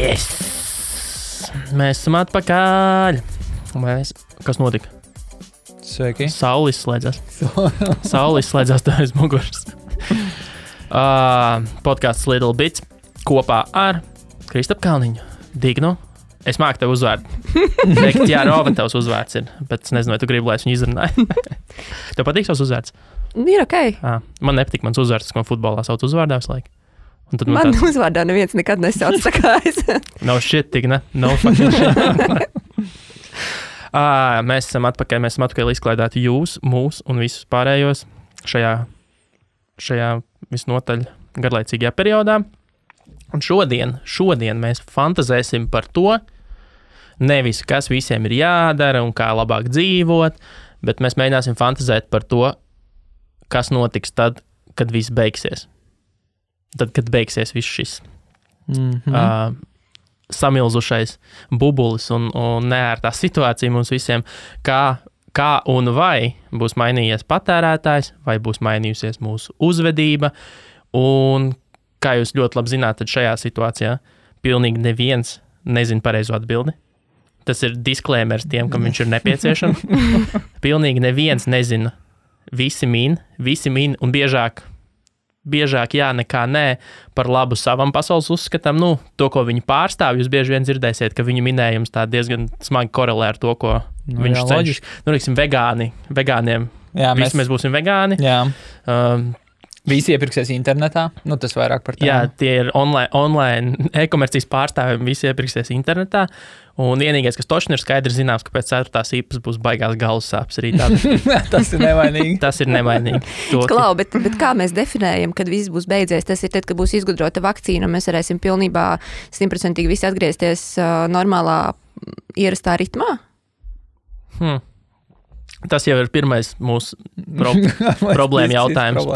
Yes! Mēs esam atpakaļ. Kas notika? Sveiki. Saule izslēdzās. Saule izslēdzās tev aiz muguras. Podcasts Little Bits kopā ar Kristapu Kalniņu. Dignu. Es māku tev uzvārdu. Teikt, jā, Rova tavs uzvārds ir, bet es nezinu, vai tu gribi, lai es viņu izrunāju. Tev patīk savs uzvārds? Ir ok. Man nepatīk mans uzvārds, ko manā sauc uzvārdā visu laiku. Man uzvārdā neviens nekad nesauc tā kā es. No shit, tik ne? No fucking shit. Mēs esam atpakaļ izklaidēti jūs, mūs un visus pārējos šajā visnotaļ garlaicīgajā periodā. Un šodien mēs fantazēsim par to, nevis kas visiem ir jādara un kā labāk dzīvot, bet mēs mēģināsim fantazēt par to, kas notiks tad, kad viss beigsies. Tad, kad beigsies viss šis samilzušais bubulis un neērtā situācija mums visiem, kā un vai būs mainījies patērētājs, vai būs mainījusies mūsu uzvedība, un kā jūs ļoti labi zināt, tad šajā situācijā pilnīgi neviens nezina pareizo atbildi. Tas ir disklēmers tiem, kam viņš ir nepieciešams. Pilnīgi neviens nezina. Visi min un biežāk jā, nekā nē, par labu savam pasaules uzskatam. To, ko viņi pārstāv, jūs bieži vien dzirdēsiet, ka viņu minējums tā diezgan smagi korelē ar to, ko viņš cenšas. Teiksim, vegāniem. Jā, mēs būsim vegāni. Jā. Visi iepirksies internetā, tas vairāk par tēmu. Jā, tie ir online e-komercijas pārstāvji, visi iepirksies internetā, un vienīgais, kas točni ir skaidrs zināms, ka pēc 4. īpas būs baigās galvas sāpes arī tādas. Tas ir nevainīgi. Tas ir nevainīgi. Klau, bet kā mēs definējam, kad viss būs beidzies? Tas ir tad, kad būs izgudrota vakcīna, un mēs varēsim pilnībā 100% visi atgriezties normālā ierastā ritmā? Tas jau ir pirmais mūsu problēma jautājums.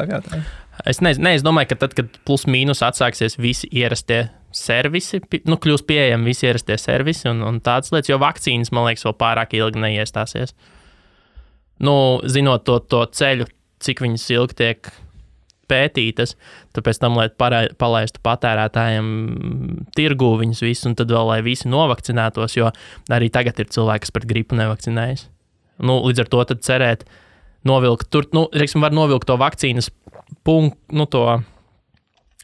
Es domāju, ka tad, kad plus mīnus atsāksies visi ierastie servisi, kļūs pieejami visi ierastie servisi un tādas lietas, jo vakcīnas, man liekas, vēl pārāk ilgi neiestāsies. Zinot to ceļu, cik viņas ilgi tiek pētītas, tāpēc tam, lai palaistu patērētājiem tirgū viņus visus, un tad vēl, lai visi novakcinētos, jo arī tagad ir cilvēki, kas pret gripu nevakcinējas. Līdz ar to tad cerēt, novilkt tur, var novilkt to vakcīnas punktu, to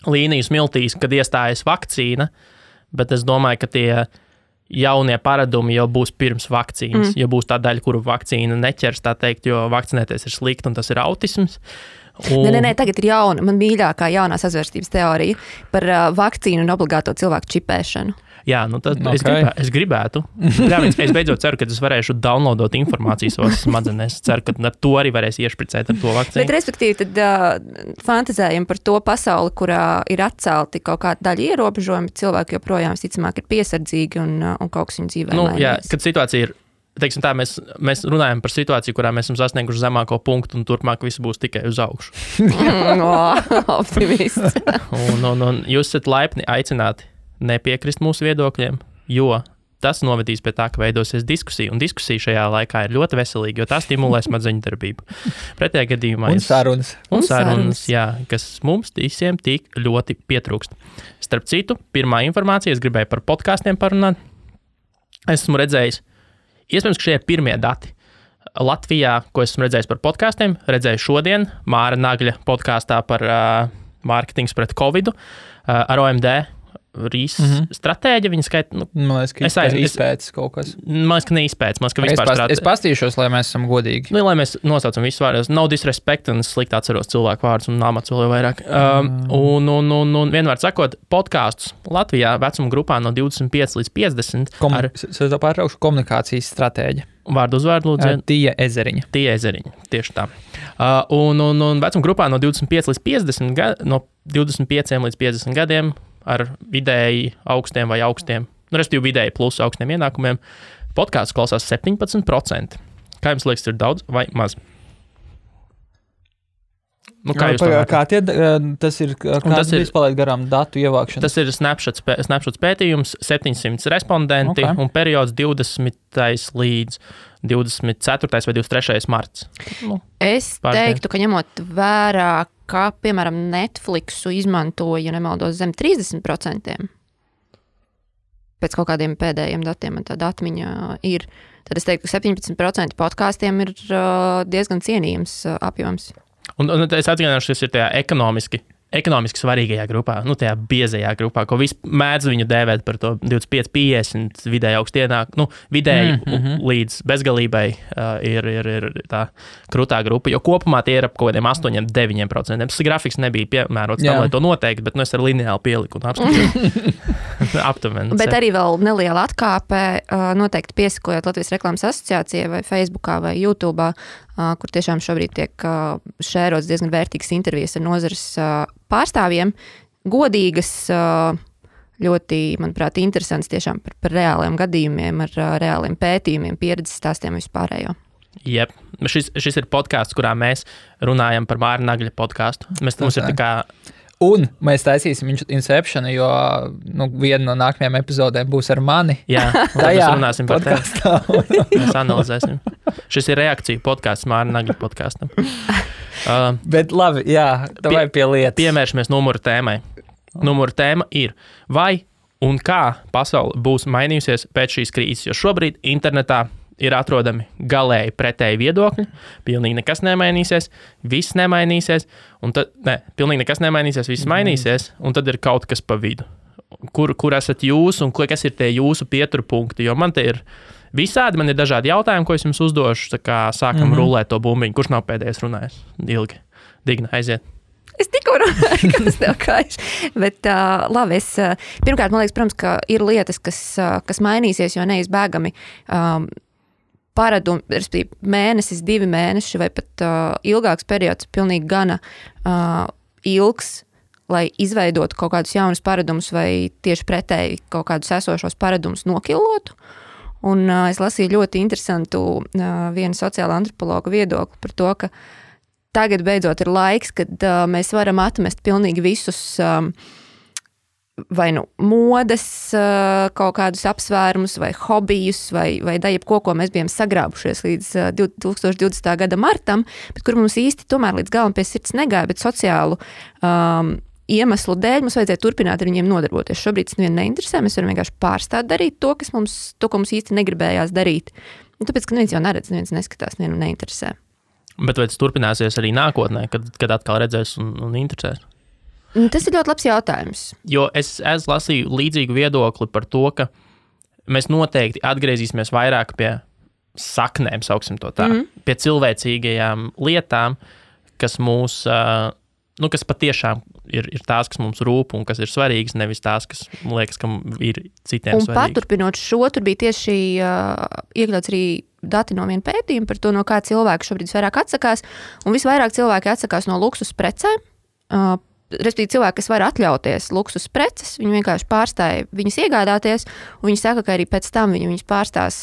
līniju smiltīs, kad iestājas vakcīna, bet es domāju, ka tie jaunie paradumi jau būs pirms vakcīnas, jo būs tā daļa, kuru vakcīna neķers, tā teikt, jo vakcinēties ir slikti un tas ir autisms. Nē, tagad ir jauna, man mīļākā jaunā sazvērstības teorija par vakcīnu un obligāto cilvēku čipēšanu. Jā, tad es gribētu. Es beidzot ceru, ka es varēšu downloadot informāciju savās smadzenēs. Es ceru, ka ar to arī varēs iešpricēt ar to vakcīnu. Bet respektīvi, tad fantazējam par to pasauli, kurā ir atcelti kaut kāda daļa ierobežojumi, cilvēki joprojām visticamāk ir piesardzīgi un kaut kas viņu dzīvē mainīs. Jā, kad situācija ir, teiksim tā, mēs runājam par situāciju, kurā mēs esam sasnieguši zemāko punktu un turpmāk viss būs tikai uz augšu. Optimists. un jūs esat laipni aicināti nepiekrist mūsu viedokļiem, jo tas novedīs pie tā, ka veidosies diskusija, un diskusija šajā laikā ir ļoti veselīga, jo tā stimulē smadzeņu darbību. Pretējā gadījumā Un sarunas, jā, kas mums visiem tik ļoti pietrūkst. Starp citu, pirmā informācija, es gribēju par podkāstiem parunāt. Esmu redzējis, iespējams, ka šie ir pirmie dati Latvijā, ko esmu redzējis par podkāstiem. Redzēju šodien Māra Nagļa podkāstā par mārketings pret Covidu ar OMD stratēģi, viņa skaita... Man liekas, ka izpētes kaut kas. Man liekas, ka neizpētes. Man liekas, ka vispār stratēģi. Es pastīšos, lai mēs esam godīgi. Lai mēs nosaucam visus vārdus. No disrespect, un es slikti atceros cilvēku vārdus un amats vēl vairāk. Un vienvārds sakot, podkāstus Latvijā vecuma grupā no 25 līdz 50 Es pārtraukšu komunikācijas stratēģi. Vārdu uzvārdu lūdzu. Tija Ezeriņa, tieši tā. Un vecuma grupā no 25 līdz 50 no 25 līdz 50 gadiem ar vidēji augstiem vai augstiem, respektīvi vidēji plus augstiem ienākumiem, podkāsts klausās 17%. Kā jums liekas, ir daudz vai maz? Kā jūs tas ir, kāds palaid garām datu ievākšana? Tas ir Snapshots pētījums, 700 respondenti un periods 20. līdz 24. vai 23. marts. Es teiktu, ka ņemot vērā, kā, piemēram, Netflixu izmantoja, ja nemaldos, zem 30%. pēc kaut kādiem pēdējiem datiem man tāda atmiņa ir, tad es teiktu, ka 17% podkāstiem ir diezgan cienījams apjoms. Un es atgādināšu, ka tas ir tajā ekonomiski svarīgajā grupā, tajā biezajā grupā, ko visi mēdz viņu dēvēt par to 25, 50 vidēji augstienāk, vidēji līdz bezgalībai ir tā krutā grupa, jo kopumā tie ir ap kaut kādiem 8-9%. Tas grafiks nebija piemērots tam, lai to noteikti, bet es ar lineāli pieliku un apskatīju aptuveni. Bet arī vēl neliela atkāpe, noteikti piesakojot Latvijas reklāmas asociācijai vai Facebookā vai YouTube'ā, kur tiešām šobrīd tiek šērots diezgan vērtīgas intervijas ar nozares pārstāvjiem, godīgas, ļoti, manuprāt, interesants tiešām par reāliem gadījumiem, ar reāliem pētījumiem, pieredzes stāstiem vispārējo. Jep. Šis ir podkāsts, kurā mēs runājam par Māra Nagļa podkāstu. Mums ir tā kā... Un mēs taisīsim Inceptionu, jo viena no nākamajām epizodēm būs ar mani. Jā, mēs runāsim par tevi. Mēs analizēsim. Šis ir reakcija podkāsts Māra Nagļa podkāstam. Bet labi, jā, vai pie lietas. Piemēršamies numuru tēmai. Numuru tēma ir, vai un kā pasaule būs mainījusies pēc šīs krīzes, jo šobrīd internetā ir atrodami galēji pretēji viedokļi, pilnīgi nekas nemainīsies, viss nemainīsies, un tad, pilnīgi nekas nemainīsies, viss mainīsies, un tad ir kaut kas pa vidu. Kur esat jūs, un kas ir tie jūsu pieturpunkti, jo man te ir visādi, man ir dažādi jautājumi, ko es jums uzdošu, tā kā sākam rulēt to bumbiņu, kurš nav pēdējais runājis ilgi. Digna, aiziet. Es tikko runāju, kas tev kājas. Bet labi, pirmkārt, man liekas, protams, ka ir lietas, kas mainīsies, jo neizbēgami paradumi, respektīvi mēnesis, 2 mēneši vai pat ilgāks periods, pilnīgi gana ilgs, lai izveidotu kaut kādus jaunus paradumus vai tieši pretēji kaut kādus esošos paradumus nokilotu. Un es lasīju ļoti interesantu vienu sociāla antropologa viedokli par to, ka tagad beidzot ir laiks, kad mēs varam atmest pilnīgi visus vai modes kaut kādus apsvērumus vai hobijus vai jebko, ko mēs bijām sagrābušies līdz 2020. gada martam, bet kur mums īsti tomēr līdz galam pie sirds negāja, bet sociālu iemeslu dēļ mums vajadzēja turpināt ar viņiem nodarboties. Šobrīd tas nevienu neinteresē, mēs varam vienkārši pārstāt darīt to, ko mums īsti negribējās darīt. Un tāpēc, ka neviens jau neredz, neviens neskatās, nevienu neinteresē. Bet vai tas turpināsies arī nākotnē, kad atkal redzēs un interesēs? Tas ir ļoti labs jautājums. Jo es lasīju līdzīgu viedokli par to, ka mēs noteikti atgriezīsimies vairāk pie saknēm, sauksim to tā, pie cilvēcīgajām lietām, kas mūs, kas patiešām ir tās, kas mums rūp un kas ir svarīgas, nevis tās, kas liekas, ka ir citiem svarīgas. Un paturpinot šo, tur bija tieši iekļauts arī dati no viena pētījuma par to, no kā cilvēki šobrīd vairāk atsakās, un visvairāk cilvēki atsakās no luksus precēm, respektīvi cilvēki, kas var atļauties luksus preces, viņi vienkārši pārstāja viņas iegādāties, un viņi saka, ka arī pēc tam viņas pārstās,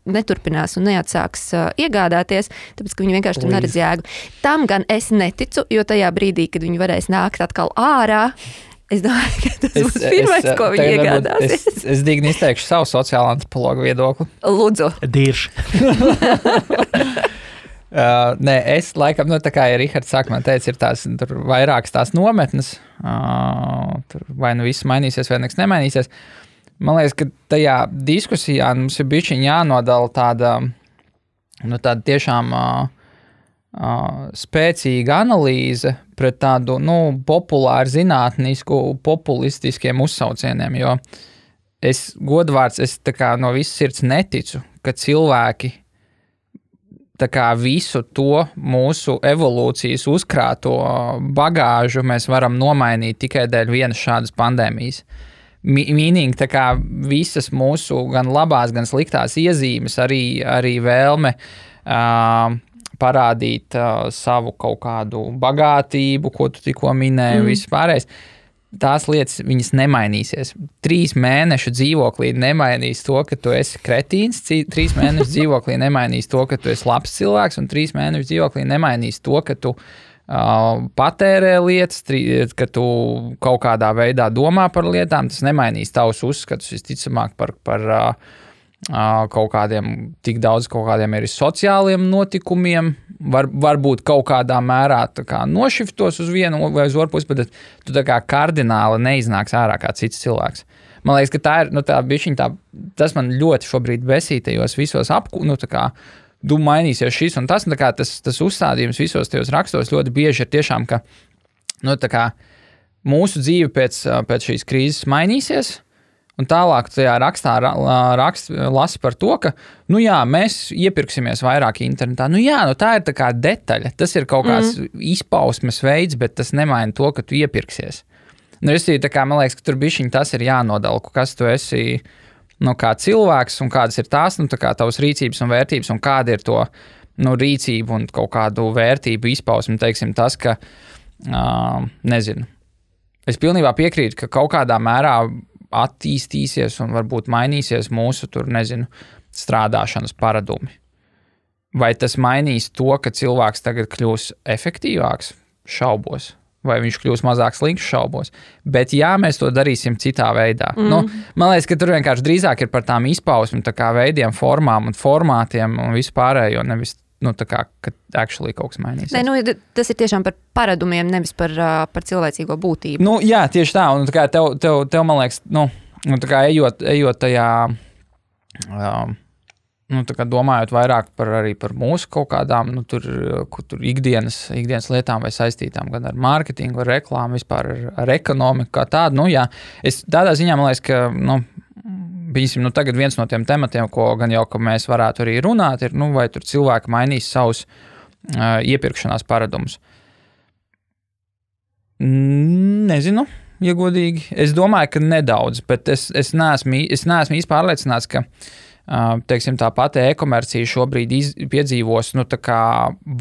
neturpinās un neatsāks iegādāties, tāpēc, ka viņi vienkārši tur neredz jēgu. Tam gan es neticu, jo tajā brīdī, kad viņi varēs nākt atkal ārā, es domāju, ka tas būs pirmais, ko viņi iegādāsies. Es digni izteikšu savu sociālo antropologu viedokli. Lūdzu. Dirši. Nē, es laikam, tā kā ja Rihards sākumā teica, ir tur vairākas tās nometnes, tur vai viss mainīsies, vai nekas nemainīsies. Man liekas, ka tajā diskusijā mums ir bišķiņ jānodala tāda tiešām spēcīga analīze pret tādu, populāru zinātnisku, populistiskiem uzsaucieniem, jo es godvārds, tā kā no visas sirds neticu, ka cilvēki tā kā visu to mūsu evolūcijas uzkrāto bagāžu mēs varam nomainīt tikai dēļ vienas šādas pandēmijas. Meaning, tā kā visas mūsu gan labās, gan sliktās iezīmes, arī vēlme parādīt savu kaut kādu bagātību, ko tu tikko minēji, viss pārējais. Tās lietas, viņas nemainīsies. 3 mēnešu dzīvoklī nemainīs to, ka tu esi kretīns, 3 mēnešu dzīvoklī nemainīs to, ka tu esi labs cilvēks, un 3 mēnešu dzīvoklī nemainīs to, ka tu patērē lietas, ka tu kaut kādā veidā domā par lietām. Tas nemainīs tavus uzskatus, visticamāk, par kaut kādiem, tik daudz kaut kādiem arī sociāliem notikumiem. Varbūt kaut kādā mērā nošiftos uz vienu vai uz otru pusi, bet tu tā kā kardināli neiznāks ārā kā cits cilvēks. Man liekas, ka tā ir, tā bišķiņ tas man ļoti šobrīd besītajos visos mainīsies šis un tas, un tas uzstādījums visos tajos rakstos ļoti bieži ir tiešām, ka, mūsu dzīve pēc šīs krīzes mainīsies, un tālāk tajā rakstā lasa par to, ka, mēs iepirksimies vairāk internetā. Tā ir tā kā detaļa, tas ir kaut kāds izpausmes veids, bet tas nemaina to, ka tu iepirksies. Man liekas, ka tur bišķiņ tas ir jānodala, kas tu esi, kā cilvēks un kādas ir tās, tavas rīcības un vērtības un kāda ir to, rīcību un kaut kādu vērtību izpausmi, teiksim tas, ka, nezinu. Es pilnībā piekrītu, ka kaut kādā mērā attīstīsies un varbūt mainīsies mūsu, strādāšanas paradumi. Vai tas mainīs to, ka cilvēks tagad kļūs efektīvāks? Šaubos. Vai viņš kļūs mazāk slikts? Šaubos. Bet mēs to darīsim citā veidā. Man liekas, ka tur vienkārši drīzāk ir par tām izpausmi, veidiem, formām un formātiem un vispārējo, nevis ka actually kaut kas mainīsies. Tas ir tiešām par paradumiem, nevis par cilvēcīgo būtību. Jā, tieši tā. Un tev man liekas, ejot tajā, domājot vairāk arī par mūsu kaut kādām, tur ikdienas lietām vai saistītām gan ar mārketingu, ar reklāmu, vispār ar ekonomiku kā tādu. Es tādā ziņā, man liekas, ka tagad viens no tiem tematiem, ko gan jau, ka mēs varētu arī runāt, ir, vai tur cilvēki mainīs savus iepirkšanās paradumus. Nezinu, ja godīgi. Es domāju, ka nedaudz, bet es neesmu īsti pārliecināts, ka teiksim, tā pati e-komercija šobrīd piedzīvos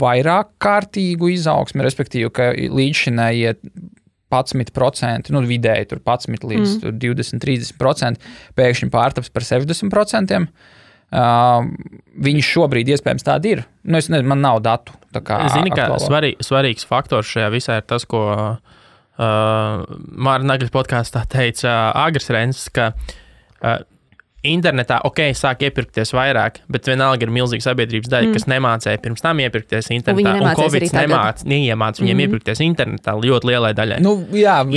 vairāk kārtīgu izaugsmi, respektīvi, ka līdzšinējie 11%, vidēji tur 11 līdz 20-30%, pēkšņi pārtaps par 60%. Viņš šobrīd iespējams tādi ir. Es nezinu, man nav datu. Zini, ka svarīgs faktors šajā visā ir tas, ko Māra Nagļas podkāstā teica Agris Renses, ka internetā, sāk iepirkties vairāk, bet vienalga ir milzīga sabiedrības daļa, kas nemācēja pirms tam iepirkties internetā. Un Covid neiemāca viņiem iepirkties internetā ļoti lielai daļai.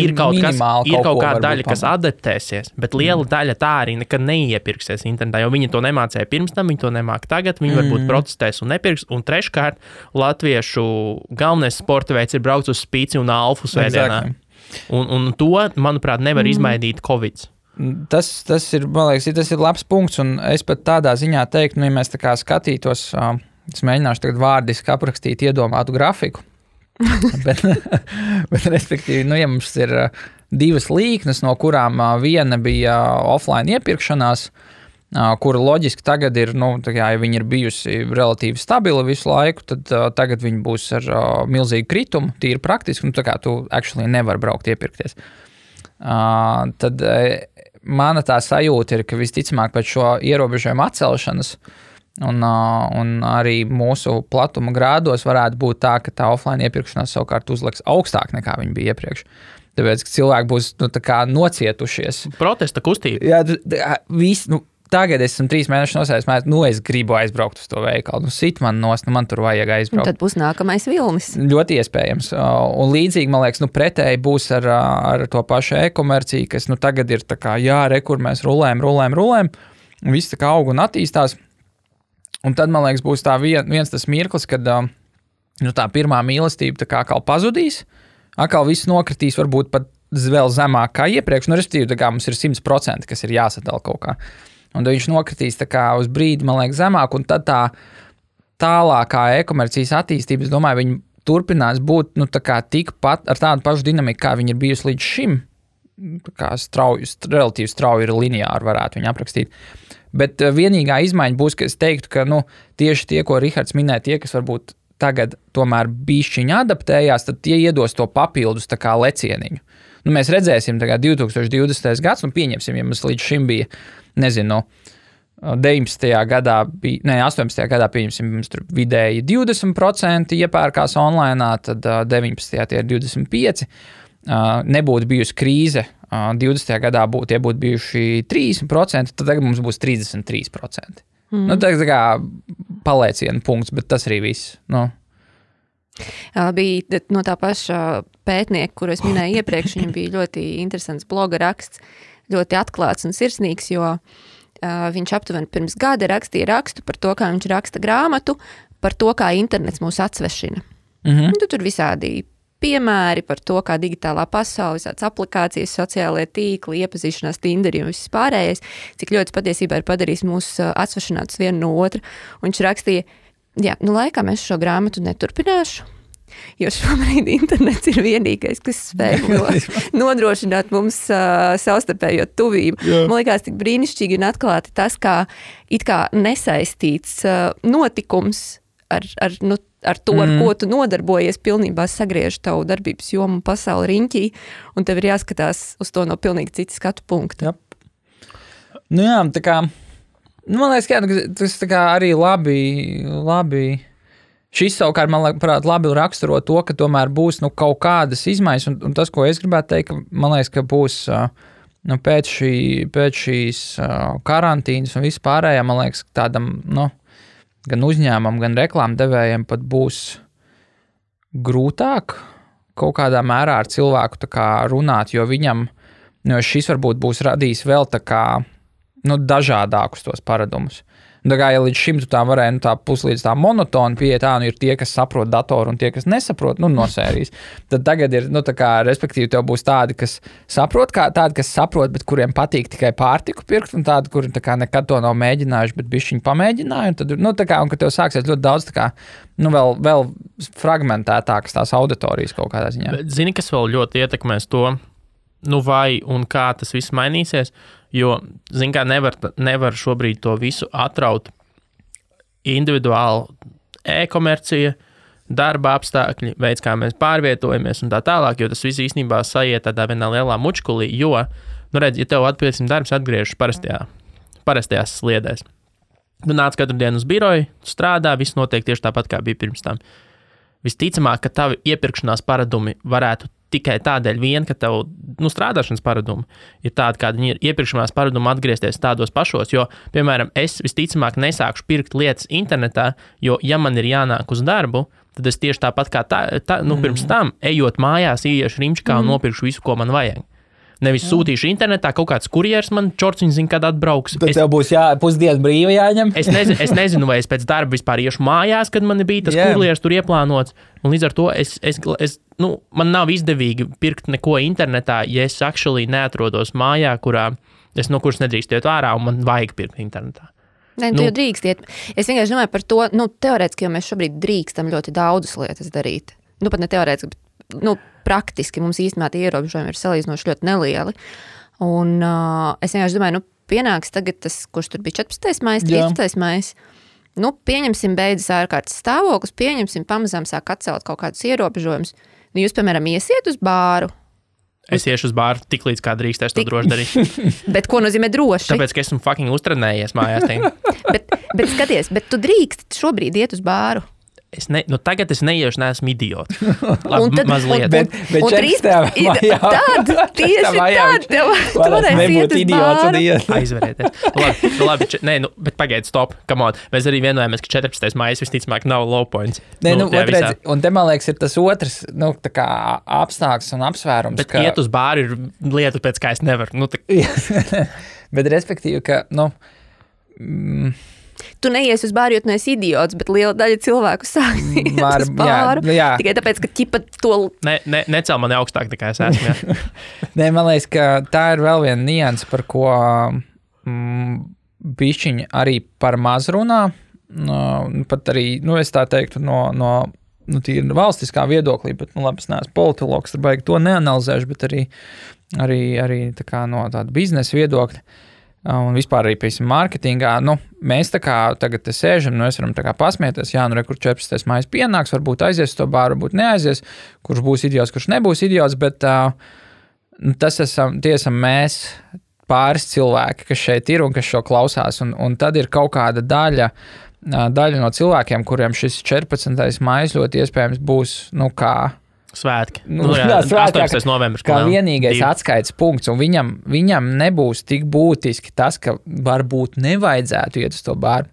Ir kaut kāda daļa, kas adaptēsies, bet liela daļa tā arī nekad neiepirksies internetā, jo viņi to nemācēja pirms tam, viņi to nemāca tagad, viņi varbūt protestēs un nepirks. Un treškārt, latviešu galvenais sporta veids ir braukt uz spīci un alfu svētdienā. Un to, manuprāt, nevar izmainīt Covid. Tas ir, man liekas, tas ir labs punkts, un es pat tādā ziņā teiktu, ja mēs tā kā skatītos, es mēģināšu tagad vārdiski aprakstīt iedomātu grafiku, bet respektīvi, ja mums ir divas līknes, no kurām viena bija offline iepirkšanās, kura loģiski tagad ir, ja viņi ir bijusi relatīvi stabila visu laiku, tad tagad viņi būs ar milzīgu kritumu, tīri praktiski, tu actually nevar braukt iepirkties. Tad mana tā sajūta ir, ka visticamāk pēc šo ierobežojumu atcelšanas un arī mūsu platuma grādos varētu būt tā, ka tā offline iepirkšanās savukārt uzliks augstāk nekā viņi bija iepriekš. Tāpēc, ka cilvēki būs nocietušies. Protesta kustība. Jā, tagad esmu 3 mēnešus nosēdis, es gribu aizbraukt uz to veikalu. Sit man nost, man tur vajag aizbraukt. Un tad būs nākamais vilnis. Ļoti iespējams. Un līdzīgi, man liekas, pretēji būs ar to pašu e-komerciju, kas tagad ir tā kā, kur mēs rulējam. Viss tā kā aug un attīstās. Un tad, man liekas, būs tā viens tas mirklis, kad tā pirmā mīlestība tā kā pazudīs. Atkal viss nokritīs, varbūt pat vēl zemāk kā iepriekš. Respektīvi, tā kā mums ir 100%, kas ir jāsadala kaut kā. Un viņš nokritīs tā kā uz brīdi, man liekas, zemāk, un tad tā tālākā e-komercijas attīstība, es domāju, viņi turpinās būt, tā kā tikpat ar tādu pašu dinamiku, kā viņi ir bijusi līdz šim. Tā kā relatīvi strauji ir lineāri, varētu viņu aprakstīt. Bet vienīgā izmaiņa būs, ka es teiktu, ka, tieši tie, ko Rihards minēja, tie, kas varbūt tagad tomēr bišķiņi adaptējās, tad tie iedos to papildus tā kā lecieniņu. Mēs redzēsim tagad 2020. gads, pieņemsim, ja mums līdz šim bija, 19. gadā, 18. gadā pieņemsim, mums tur vidēji 20% iepērkās online, tad 19. tie ir 25%. Nebūtu bijusi krīze, 20. gadā tie būtu bijuši 30%, tad tagad mums būs 33%. Tā kā palēciena punkts, bet tas arī viss. Bija no tā paša pētnieka, kuru es minēju iepriekš, viņam bija ļoti interesants bloga raksts, ļoti atklāts un sirsnīgs, jo viņš aptuveni pirms gada rakstīja rakstu par to, kā viņš raksta grāmatu, par to, kā internets mūs atsvešina. Tur visādi piemēri par to, kā digitālā pasaule, visādas aplikācijas, sociālajie tīkli, iepazīšanās Tinderi un viss pārējais, cik ļoti patiesībā ir padarījis mūs atsvešinātus vienu no otra. Un viņš rakstīja, laikam es šo grāmatu neturpināšu, jo šobrīd internets ir vienīgais, kas spēj nodrošināt mums savstarpējo tuvību. Man liekas tik brīnišķīgi un atklāti tas, kā it kā nesaistīts notikums ar to, ar ko tu nodarbojies, pilnībā sagriež tavu darbības jomu pasauli riņķī, un tev ir jāskatās uz to no pilnīgi citas skatu punkta. Tā kā, man liekas, tas tā kā arī labi. Šis savukārt, man liekas, labi raksturo to, ka tomēr būs kaut kādas izmaiņas, un tas, ko es gribētu teikt, man liekas, ka būs pēc šīs karantīnas un vispārējā, man liekas, tādam, gan uzņēmumam, gan reklāmdevējiem pat būs grūtāk kaut kādā mērā ar cilvēku tā kā runāt, jo viņam, šis varbūt būs radījis vēl tā kā, dažādākus tos paradumus. Tā kā, ja līdz šim tu tā varēja, tā puslīdz tā monotona pieeja, ir tie, kas saprot datoru un tie, kas nesaprot, no sērijas. Tad tagad ir, tā kā, respektīvi, tev būs tādi, kas saprot, bet kuriem patīk tikai pārtiku pirkt, un tādi, kuri tā kā nekad to nav mēģinājuši, bet bišķiņi pamēģināja, un tad, tā kā, un ka tev sāksies ļoti daudz, tā kā, vēl fragmentētākas tās auditorijas kaut kādā ziņā. Bet zini, kas vēl ļoti ietekmēs to, vai un kā tas viss mainīsies, jo, zini, kā nevar šobrīd to visu atraut individuāli e-komercija, darba apstākļi, veids, kā mēs pārvietojamies un tā tālāk, jo tas viss īstenībā sajiet tādā vienā lielā mučkulī, jo, redz, ja tev darbs atgriežas parastajās sliedēs. Tu nāc katru dienu uz biroju, strādā, viss notiek tieši tāpat, kā bija pirms tam. Visticamāk, ka tavi iepirkšanās paradumi varētu tikai tādēļ vien, ka tev strādāšanas paradumi ir tādi, kādi viņi ir iepirkšanās paradumi atgriezties tādos pašos, jo, piemēram, es visticamāk nesākšu pirkt lietas internetā, jo, ja man ir jānāk uz darbu, tad es tieši tāpat kā pirms tam, ejot mājās, ieiešu rimčikā un nopirkšu visu, ko man vajag. Nevis sūtīšu internetā, kaut kāds kurjers man čorciņš zina, kad atbrauks. Tad tev būs pusdienu brīva jāņem. Es nezinu, vai es pēc darba vispār iešu mājās, kad man bija tas kurjers tur ieplānots. Un līdz ar to man nav izdevīgi pirkt neko internetā, ja es actually neatrodos mājā, kuras nedrīkst iet ārā un man vajag pirkt internetā. Nē, tu jau drīkst iet. Es vienkārši domāju par to, teorētiski, jo mēs šobrīd drīkstam ļoti daudzas lietas darīt. Pat ne teorētiski, bet, praktiski mums īstenībā tie ierobežojumi ir salīdzinoši ļoti nelieli. Un es vienkārši domāju, pienāks tagad tas, kurš tur bija 14. maijs, 13. maijs. Pieņemsim beidzas ārkārtas stāvoklis, pamazām sāk atcelt kaut kādus ierobežojumus. Jūs, piemēram, iesiet uz bāru. Es iešu uz bāru tik līdz kā drīkstēs to droši darīt. Bet ko nozīmē droši? Tāpēc, ka esmu fucking uztrenējies mājās. bet skaties, bet tu drīkst šobrīd iet uz bāru. Tagad es neiešu, neesmu idiots. Mazliet. Bet 13. maijā. Tieši tad tev varēs iet uz bāru. Aizverieties. Labi, bet pagaid, stop, come on. Mēs arī vienojamies, ka 14. maijs visticamāk nav low points. Redz, un te, man liekas, ir tas otrs, tā kā apstākļs un apsvērums. Bet iet uz bāru ir lieta, pēc kā es nevaru. Bet respektīvi, ka, Tu neies uz bāru, jo tu neesi idiots, bet liela daļa cilvēku sāk iet uz bāru. Jā. Tikai tāpēc, ka ķipa to... Necel mani augstāk, nekā es esmu. Jā. Nē, man liekas, ka tā ir vēl viena nianse, par ko bišķiņi arī par maz runā. Pat arī, es tā teiktu, no tīri valstiskā viedoklī, bet, labi, es neesmu politologs, tad baigi to neanalizēšu, bet arī tā kā no tāda biznesa viedokļa. Un vispār arī, piemēram, mārketingā, mēs tā kā tagad te sēžam, es varam tā kā pasmieties, kur 14. maijs pienāks, varbūt aizies to bāru, varbūt neaizies, kurš būs idiots, kurš nebūs idiots, bet tie esam mēs pāris cilvēki, kas šeit ir un kas šo klausās, un tad ir kaut kāda daļa no cilvēkiem, kuriem šis 14. maijs ļoti iespējams būs, Svētki. 18. novembris. Kā vienīgais atskaites punkts, un viņam nebūs tik būtiski tas, ka varbūt nevajadzētu iet uz to bāru.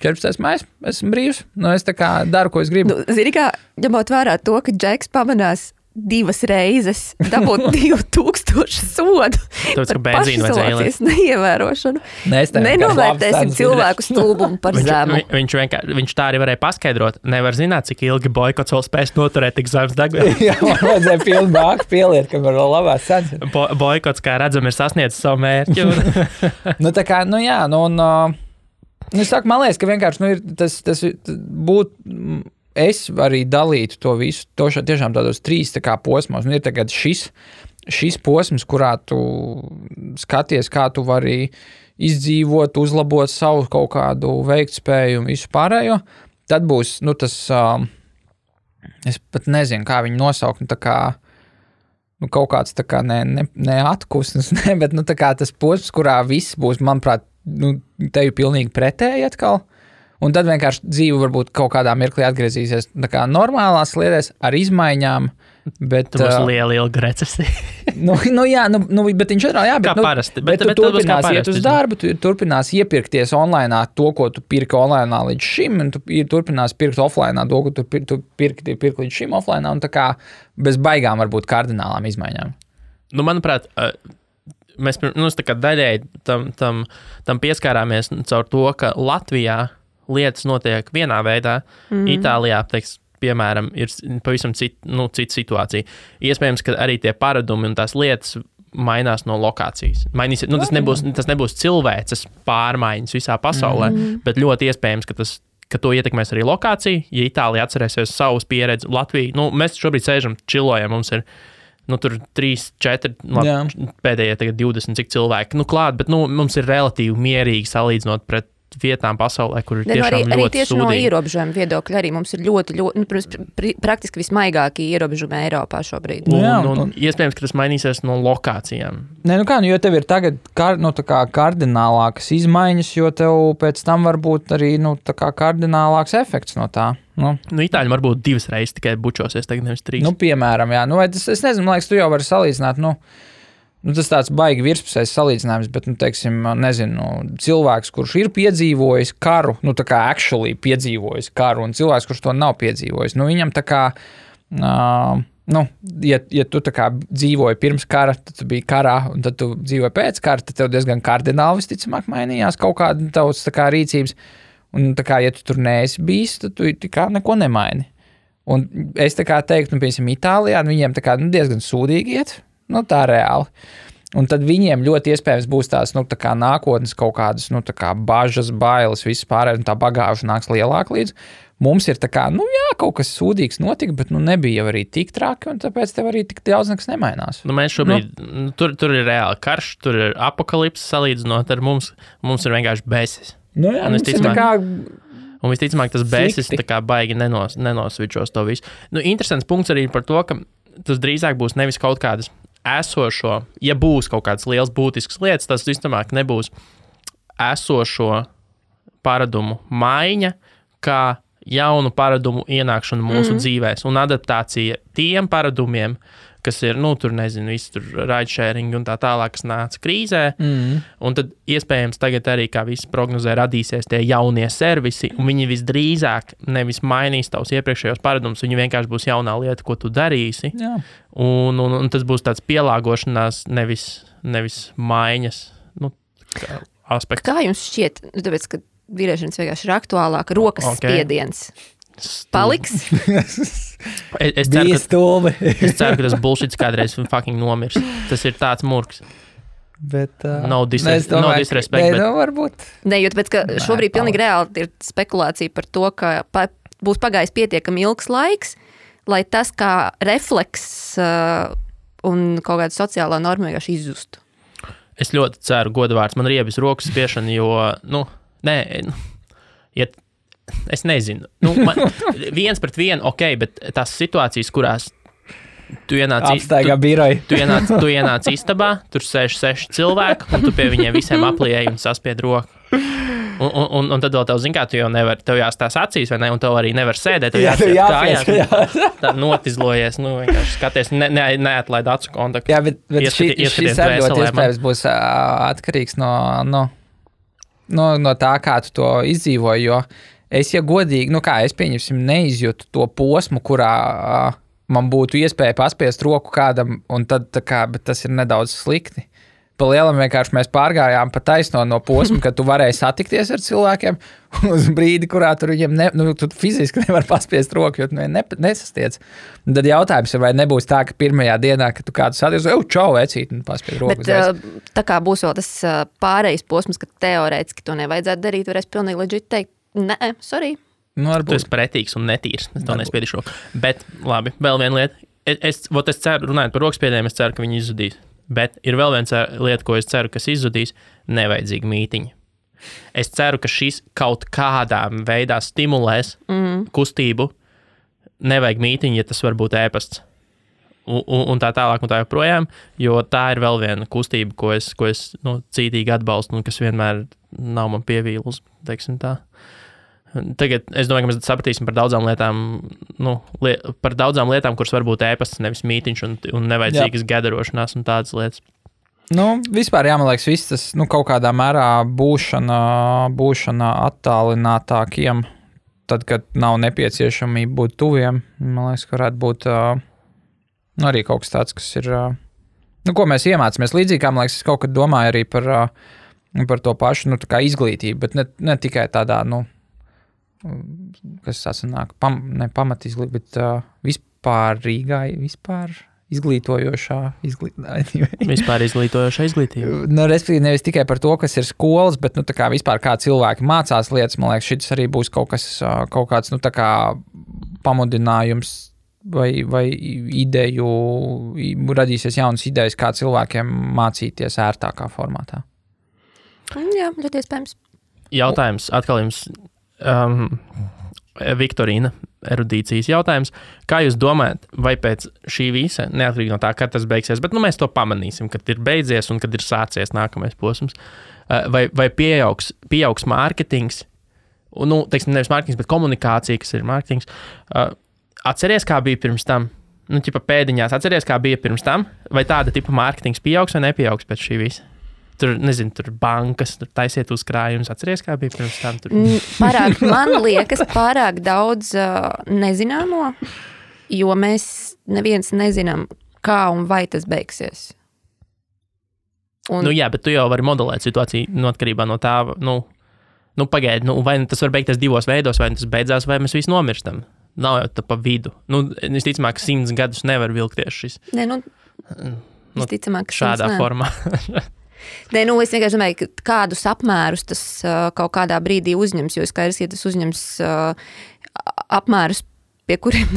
14. maijs, esmu brīvs, es tā kā daru, ko es gribu. Zini kā, ņemot vērā to, ka Džeks pamanās 2 reizes dabūt 2000 sodu Tāpēc, ka par benzīnu vajadzēja pašizolācijas neievērošanu. Nenovērtēsim Nenovērtēsim cilvēku stulbumu par zemu. Viņš tā arī varēja paskaidrot. Nevar zināt, cik ilgi boikots vēl spēs noturēt tik zemes degvielas. Jā, man vajadzēja pilnu bāku pieliet, ka var vēl labās cenas. Boikots, kā redzam, ir sasniedzis savu mērķi. Nu, tā kā, nu jā, nu, un, es saku, man liekas, ka vienkārši, nu, ir tas būtu, es arī dalītu to visu, tiešām tādos 3 tā kā posmos, un ir tagad šis posms, kurā tu skaties, kā tu vari izdzīvot, uzlabot savu kaut kādu veiktspēju un visu pārējo, tad būs, nu, tas, es pat nezinu, kā viņu nosaukt, nu, tā kā, nu, kaut kāds tā kā ne atkusnes, ne, bet, nu, tā kā tas posms, kurā viss būs, manuprāt, nu, tevi pilnīgi pretēji atkal, un tad vienkārši dzīve varbūt kaut kādā mirklī atgriezīsies tā kā normālās lietās ar izmaiņām, bet... Tā būs liela recesija. jā, bet viņš atrā, jā, bet, kā parasti. Bet tu turpinās iet uz darbu, tu turpinās iepirkties online to, ko tu pirki online līdz šim, un tu turpinās pirkt offline to, ko tu pirki līdz šim offline, un tā kā bez baigām varbūt kardinālām izmaiņām. Nu, manuprāt, mēs tā kā daļēji tam pieskārāmies caur to, ka Latvijā lietas notiek vienā veidā, Itālijā, piemēram, ir pavisam cita situācija. Iespējams, ka arī tie paradumi un tās lietas mainās no lokācijas. Tas nebūs cilvēces pārmaiņas visā pasaulē, bet ļoti iespējams, ka to ietekmēs arī lokācija. Ja Itālija atcerēsies savus pieredzi, Latvija, mēs šobrīd sēžam, čilojam, mums ir tur 3, 4, pēdējie tagad 20 cik cilvēki klāt, bet mums ir relatīvi mierīgi salīdzinot pret vietām pasaulē, kur ir tiešām ļoti arī tieši sūdīgi. No ierobežojuma viedokļa arī mums ir ļoti praktiski vismaigākie ierobežojumi Eiropā šobrīd. Un iespējams, ka tas mainīsies no lokācijām. Nē, jo tev ir tagad kardinālākas izmaiņas, jo tev pēc tam var būt arī kardinālāks efekts no tā. Itāļi varbūt 2 reizes tikai bučosies, tagad nevis 3. Piemēram, jā. Es nezinu, man liekas, tu jau vari salīdzināt, tas tāds baigi virspusējs salīdzinājums, bet, cilvēks, kurš ir piedzīvojis karu, tā kā actually piedzīvojis karu, un cilvēks, kurš to nav piedzīvojis, viņam tā kā, ja tu tā kā dzīvoji pirms kara, tad tu biji karā, un tad tu dzīvoji pēc kara, tad tev diezgan kardināli visticamāk mainījās kaut kāda tavs tā kā rīcības, un tā kā, ja tu tur neesi bijis, tad tu tā kā neko nemaini. Un es tā kā teiktu, piemēram, Itālijā, viņiem tā kā diezgan sūdīgi iet, tā reāli. Un tad viņiem ļoti iespējams būs tās, tā kā nākotnes kaut kādas, tā kā bažas, bailes, viss pārējais, un tā bagāža nāks lielāk līdz. Mums ir tā kā, kaut kas sūdīgs notika, bet, nebija jau arī tik traki, un tāpēc tev arī tik daudz nekas nemainās. Mēs šobrīd, tur ir reāli karš, tur ir apokalipse salīdzinot ar mums ir vienkārši besis. Un visticamāk, tas besis tā kā baigi nenosvičos to visu. Interesants punkts arī par to, ka tas drīzāk būs nevis kaut kādas esošo, ja būs kaut kādas liels būtiskas lietas, tas visticamāk nebūs esošo paradumu maiņa, kā jaunu paradumu ienākšanu mūsu dzīvēs un adaptācija tiem paradumiem, kas ir, viss tur ride-sharing un tā tālāk, kas nāca krīzē. Un tad iespējams tagad arī, kā visi prognozē, radīsies tie jaunie servisi, un viņi visdrīzāk nevis mainīs tavus iepriekšējos paradumus, viņi vienkārši būs jaunā lieta, ko tu darīsi. Jā. Un tas būs tāds pielāgošanās, nevis maiņas aspekts. Kā jums šķiet, tāpēc, ka vīriešanas vienkārši ir aktuālāka, rokas spiediens paliks? Es ceru, ka tas bullshits kādreiz fucking nomirs. Tas ir tāds murgs. Bet, no disrespect. Bet varbūt. Nē, jo tāpēc, ka šobrīd pilnīgi reāli ir spekulācija par to, ka būs pagājis pietiekami ilgs laiks, lai tas kā refleks un kaut kāda sociālā norma vienkārši izzustu. Es ļoti ceru, godavārds, man riebis rokas spiešana, jo, es nezinu. Viens pret vienu, bet tās situācijas, kurās tu ienāc istabā, tur sēž 6 cilvēki, un tu pie viņiem visiem aplieji un saspied roku. Un tad vēl tev, zin kā, tu jau nevar, tev jāstās acīs, vai ne, un tev arī nevar sēdēt, tev jāpies, tā notizlojies, vienkārši skaties, neatlaid acu kontaktu. Jā, bet šis arī ļoti iespējams būs atkarīgs no tā, kā tu to izdzīvoji, jo es, ja godīgi, es pieņemsim, neizjūtu to posmu, kurā man būtu iespēja paspiest roku kādam, un tad bet tas ir nedaudz slikti. Pa lielam vienkārši mēs pārgājām pa taisno no posma, kad tu varēji satikties ar cilvēkiem uz brīdi, kurā tur viņiem tu fiziski nevar paspiest roku, jo tu nesastiec. Un tad jautājums ir, vai nebūs tā, ka pirmajā dienā, kad tu kādu satiec, čau, vecīt, un paspiest roku. Bet tā kā būs vēl tas pārējais posms, ka teorētiski to nevajadzētu darīt, varēs pilnīgi leģit teikt, nē, sorry. Tu esi pretīgs un netīrs, es to nespiedīšu roku. Bet, labi, vēl viena lieta. Es ceru, runājot par rokspiediem, es ceru, ka viņi izzudīs. Bet ir vēl viena lieta, ko es ceru, kas izzudīs, nevajadzīgi mītiņi. Es ceru, ka šis kaut kādā veidā stimulēs kustību. Nevajag mītiņi, ja tas var būt ēpasts. Un tā tālāk un tā joprojām, jo tā ir vēl viena kustība, ko es cītīgi atbalstu un kas vienmēr nav man pievīlus, teiksim tā. Tagad es domāju, ka mēs sapratīsim par daudzām lietām, kuras var būt ēpasts, nevis mītiņš un nevajadzīgas gadarošanās un tādas lietas. Vispār man liekas, viss tas kaut kādā mērā būšana attālinātākiem, tad, kad nav nepieciešamība būt tuviem. Man liekas, ka varētu būt arī kaut kas tāds, kas ir, ko mēs iemācāmies. Līdzīgi kā, man liekas, es kaut kad domāju arī par to pašu, tā kā izglītību, bet ne tikai tādā, kas sanāk, pamat izglītība, bet vispār izglītojošā izglītība. Vispār izglītojošā izglītība. Respektīvi, nevis tikai par to, kas ir skolas, bet, tā kā vispār kā cilvēki mācās lietas, man liekas, šis arī būs kaut kāds, tā kā pamudinājums vai ideju, radīsies jaunas idejas, kā cilvēkiem mācīties ērtākā formātā. Jā, ļoti iespējams. Jautājums atkal jums. Viktorīna, erudīcijas jautājums. Kā jūs domājat, vai pēc šī visa, neatkarīgi no tā, kad tas beigsies, bet mēs to pamanīsim, kad ir beidzies un kad ir sācies nākamais posms, vai pieaugs mārketings, teiksim, nevis mārketings, bet komunikācija, kas ir mārketings. Atceries, kā bija pirms tam? Pēdiņās, atceries, kā bija pirms tam? Vai tāda tipa mārketings pieaugs vai nepieaugs pēc šī visa? Tur bankas, tur taisiet uzkrājumus. Atceries, kā bija pirms tam? Man liekas, pārāk daudz nezināmo, jo mēs neviens nezinām, kā un vai tas beigsies. Jā, bet tu jau vari modelēt situāciju atkarībā no tā, pagaidi, vai tas var beigties divos veidos, vai tas beidzās, vai mēs visi nomirstam. Nav jau tā pa vidu. Visticamāk, 100 gadus nevar vilkties šis. Visticamāk, šādā formā. Nē, es vienkārši domāju, ka kādus apmērus tas kaut kādā brīdī uzņems, jo skaidrs, ja tas uzņems apmērus, pie kuriem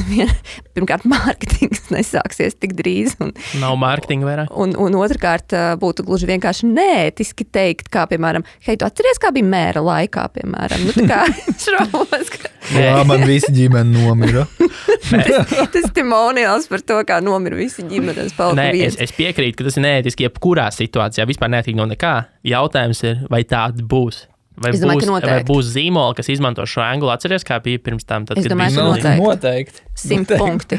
pirmkārt mārketings nesāksies tik drīz. Nav mārketinga vairāk. Un otrkārt būtu gluži vienkārši neētiski teikt, kā, piemēram, hei, tu atceries, kā bija mēra laikā, piemēram? Tā kā šaubos, ka... Jā, man visi ģimene nomira. Tas testimoniāls par to, kā nomira visi ģimenes. Es piekrītu, ka tas ir neētiski jebkurā situācijā, vispār neētīgi no nekā. Jautājums ir, vai tāds būs? Vai būs zīmola, kas izmanto šo angulu? Atceries, kā bija pirms tam? Tad, es domāju, ka noteikti. 100 punkti.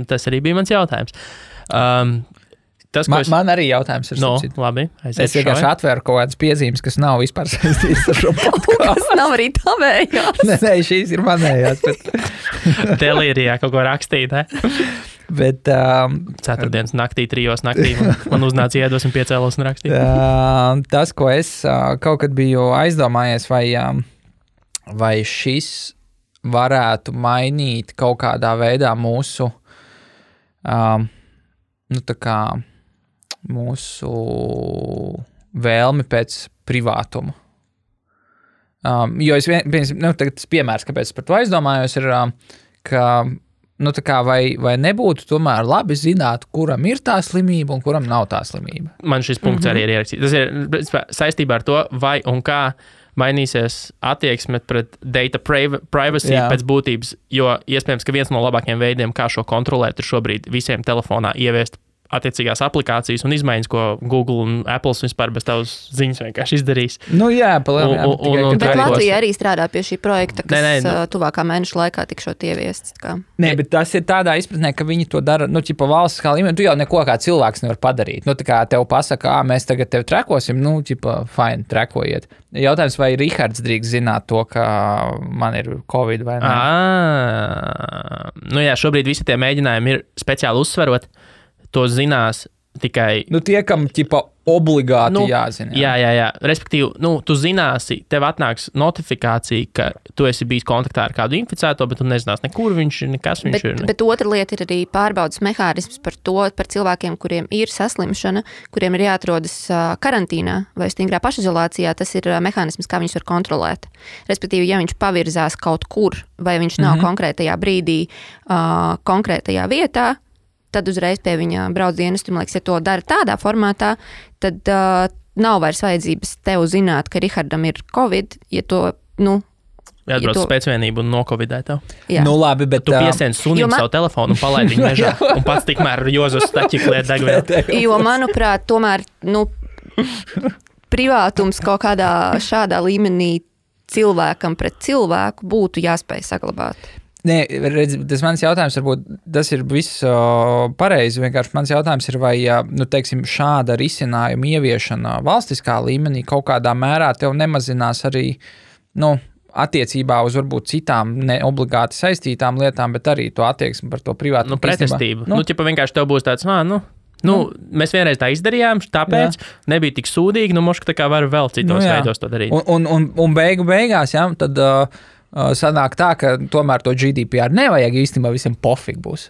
Tas arī bija mans jautājums. Man arī jautājums ir. Labi. Es vienkārši atvēru kaut kādas piezīmes, kas nav vispār saistītas ar šo podcastu. Tas nav arī tavējās. Nē, šīs ir manējās. Delīrijā kaut ko rakstīt, ne? Bet, Ceturtdienas naktī, 3 naktī man uznāca iedos un piecēlos un rakstīja. Tas, ko es kaut kad biju aizdomājies, vai šis varētu mainīt kaut kādā veidā mūsu mūsu vēlmi pēc privātuma. Jo tas piemērs, kāpēc es par to aizdomājos, ir, ka vai nebūtu tomēr labi zināt, kuram ir tā slimība un kuram nav tā slimība. Man šis punkts arī ir ierakstīts. Tas ir saistībā ar to, vai un kā mainīsies attieksme pret data privacy pēc būtības, jo iespējams, ka viens no labākajiem veidiem, kā šo kontrolēt, ir šobrīd visiem telefonā ieviest attiecīgās aplikācijas un izmaiņas, ko Google un Apple vispār bez tavas ziņas vienkārši izdarīs. Nu jā, palielināt. Bet Latvija arī strādā pie šī projekta, kas tuvākā mēneša laikā tikšot ieviests. Nē, bet tas ir tādā izpratnē, ka viņi to dara, pa valsts kā līmeni, tu jau neko kā cilvēks nevar padarīt. Tā kā tev pasaka, mēs tagad tevi trekosim, fine, trekojiet. Jautājums, vai Rihards drīkst zināt to, ka man ir Covid vai ne? Jā, šobrīd visi tie mēģinājumi ir speciāli uzsverot. To zinās tikai... Tie, kam obligāti jāzina. Jā. Respektīvi, tu zināsi, tev atnāks notifikācija, ka tu esi bijis kontaktā ar kādu inficēto, bet tu nezināsi nekur viņš ir, nekas viņš ir. Bet otra lieta ir arī pārbaudas mehānisms par cilvēkiem, kuriem ir saslimšana, kuriem ir jāatrodas karantīnā vai stingrā pašizolācijā. Tas ir mehānisms, kā viņus var kontrolēt. Respektīvi, ja viņš pavirzās kaut kur, vai viņš nav konkrētajā brīdī, konkrētajā vietā, tad uzreiz pie viņa brauc dienestu. Man liekas, ja to dara tādā formātā, tad nav vairs vajadzības tev zināt, ka Rihardam ir Covid, ja to, Jāatbrauc spēcvienību un nokovidē tev. Jā. Labi, bet... Tu piesien sunim savu telefonu un palaid viņu mežā, un pats tikmēr Jozas staķi kliet degvielu. Jo, manuprāt, tomēr, privātums kaut kādā šādā līmenī cilvēkam pret cilvēku būtu jāspēj saglabāt. Nē, redz, tas mans jautājums, varbūt tas ir viss pareizi, vienkārši mans jautājums ir, vai, teiksim, šāda risinājuma ieviešana valstiskā līmenī kaut kādā mērā tev nemazinās arī, attiecībā uz varbūt citām neobligāti saistītām lietām, bet arī to attieksmi par to privātu. Pretestību. Vienkārši tev būs tāds, mēs vienreiz tā izdarījām, tāpēc nebija tik sūdīgi, moška tā kā var vēl citos veidos to darīt. Un beigās, tad... sanāk tā, ka tomēr to GDPR nevajag īstenībā visiem pofīgi būs.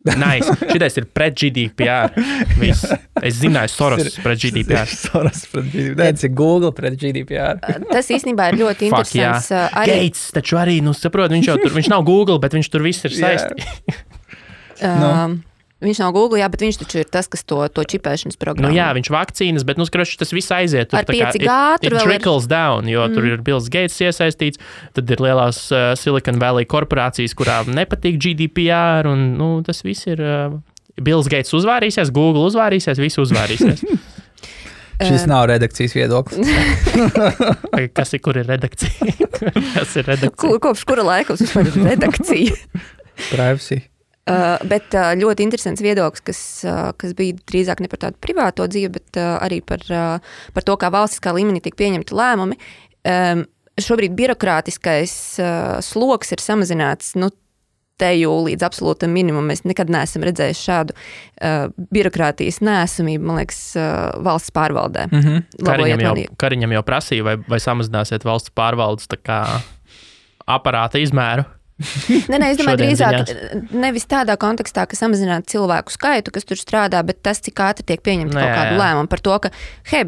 Nice. Šitais ir pret GDPR. Viss. Es zināju Soros pret GDPR. Soros pret GDPR. Nē, tas ir Google pret GDPR. Tas īstenībā ir ļoti interesants. Gates taču arī, saprot, viņš nav Google, bet viņš tur viss ir saistīts. Viņš nav Google, bet viņš taču ir tas, kas to čipēšanas programmu. Viņš vakcīnas, bet, tas viss aiziet. Ar 5G tur trickles down, jo tur ir Bills Gates iesaistīts, tad ir lielās Silicon Valley korporācijas, kurām nepatīk GDPR, un, tas viss ir... Bills Gates uzvārīsies, Google uzvārīsies, visi uzvārīsies. Šis nav redakcijas viedoklis. Kur ir redakcija? Kas ir redakcija? Kopš kura laika vispār ir redakcija? Privacy. Bet ļoti interesants viedoklis, kas bija drīzāk ne par tādu privāto dzīvi, bet arī par to, kā valstiskā līmenī tiek pieņemti lēmumi. Šobrīd birokrātiskais sloks ir samazināts, teju līdz absolūtam minimumam. Mēs nekad neesam redzējuši šādu birokrātijas neesamību, man liekas, valsts pārvaldē. Kariņam jau prasīja, vai samazināsiet valsts pārvaldes tā kā aparāta izmēru. Nē, es domāju, drīzāk nevis tādā kontekstā, ka samazināt cilvēku skaitu, kas tur strādā, bet tas, cik ātri tiek pieņemta kaut kādu lēmumu par to, ka,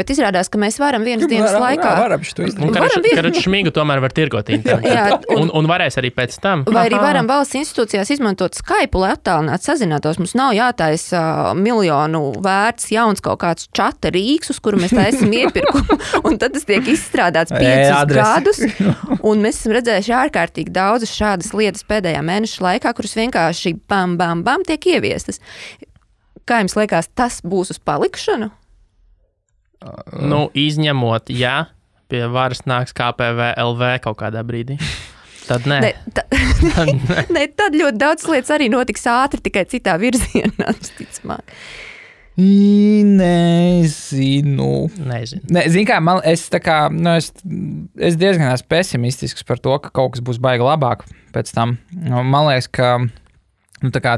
bet izrādās, ka mēs varam vienas dienas laikā... Varam šito izdarīt. Karaču šmigu tomēr var tirgot internetā. Un varēs arī pēc tam. Vai arī varam valsts institūcijās izmantot Skype, lai attālināt sazinātos. Mums nav jātaisa miljonu vērts jauns kaut kāds čata rīks, uz kuru mēs taisam iepirkumu, un tad tas tiek izstrādāts 5 gadus, un mēs esam redzējuši ārkārtīgi daudzas šādas lietas pēdējā mēneša laikā, kuras vienkārši bam, bam, bam tiek ieviestas. Kā jums liekas, tas būs uz palikšanu? Izņemot, pie varas nāks KPV LV kaut kādā brīdī. Tad nē. Tad ļoti daudz lietas arī notiks ātri, tikai citā virzienā, ticamāk. Nezinu. Zini kā, es diezgan esmu pesimistisks par to, ka kaut kas būs baigi labāk pēc tam. Man liekas, ka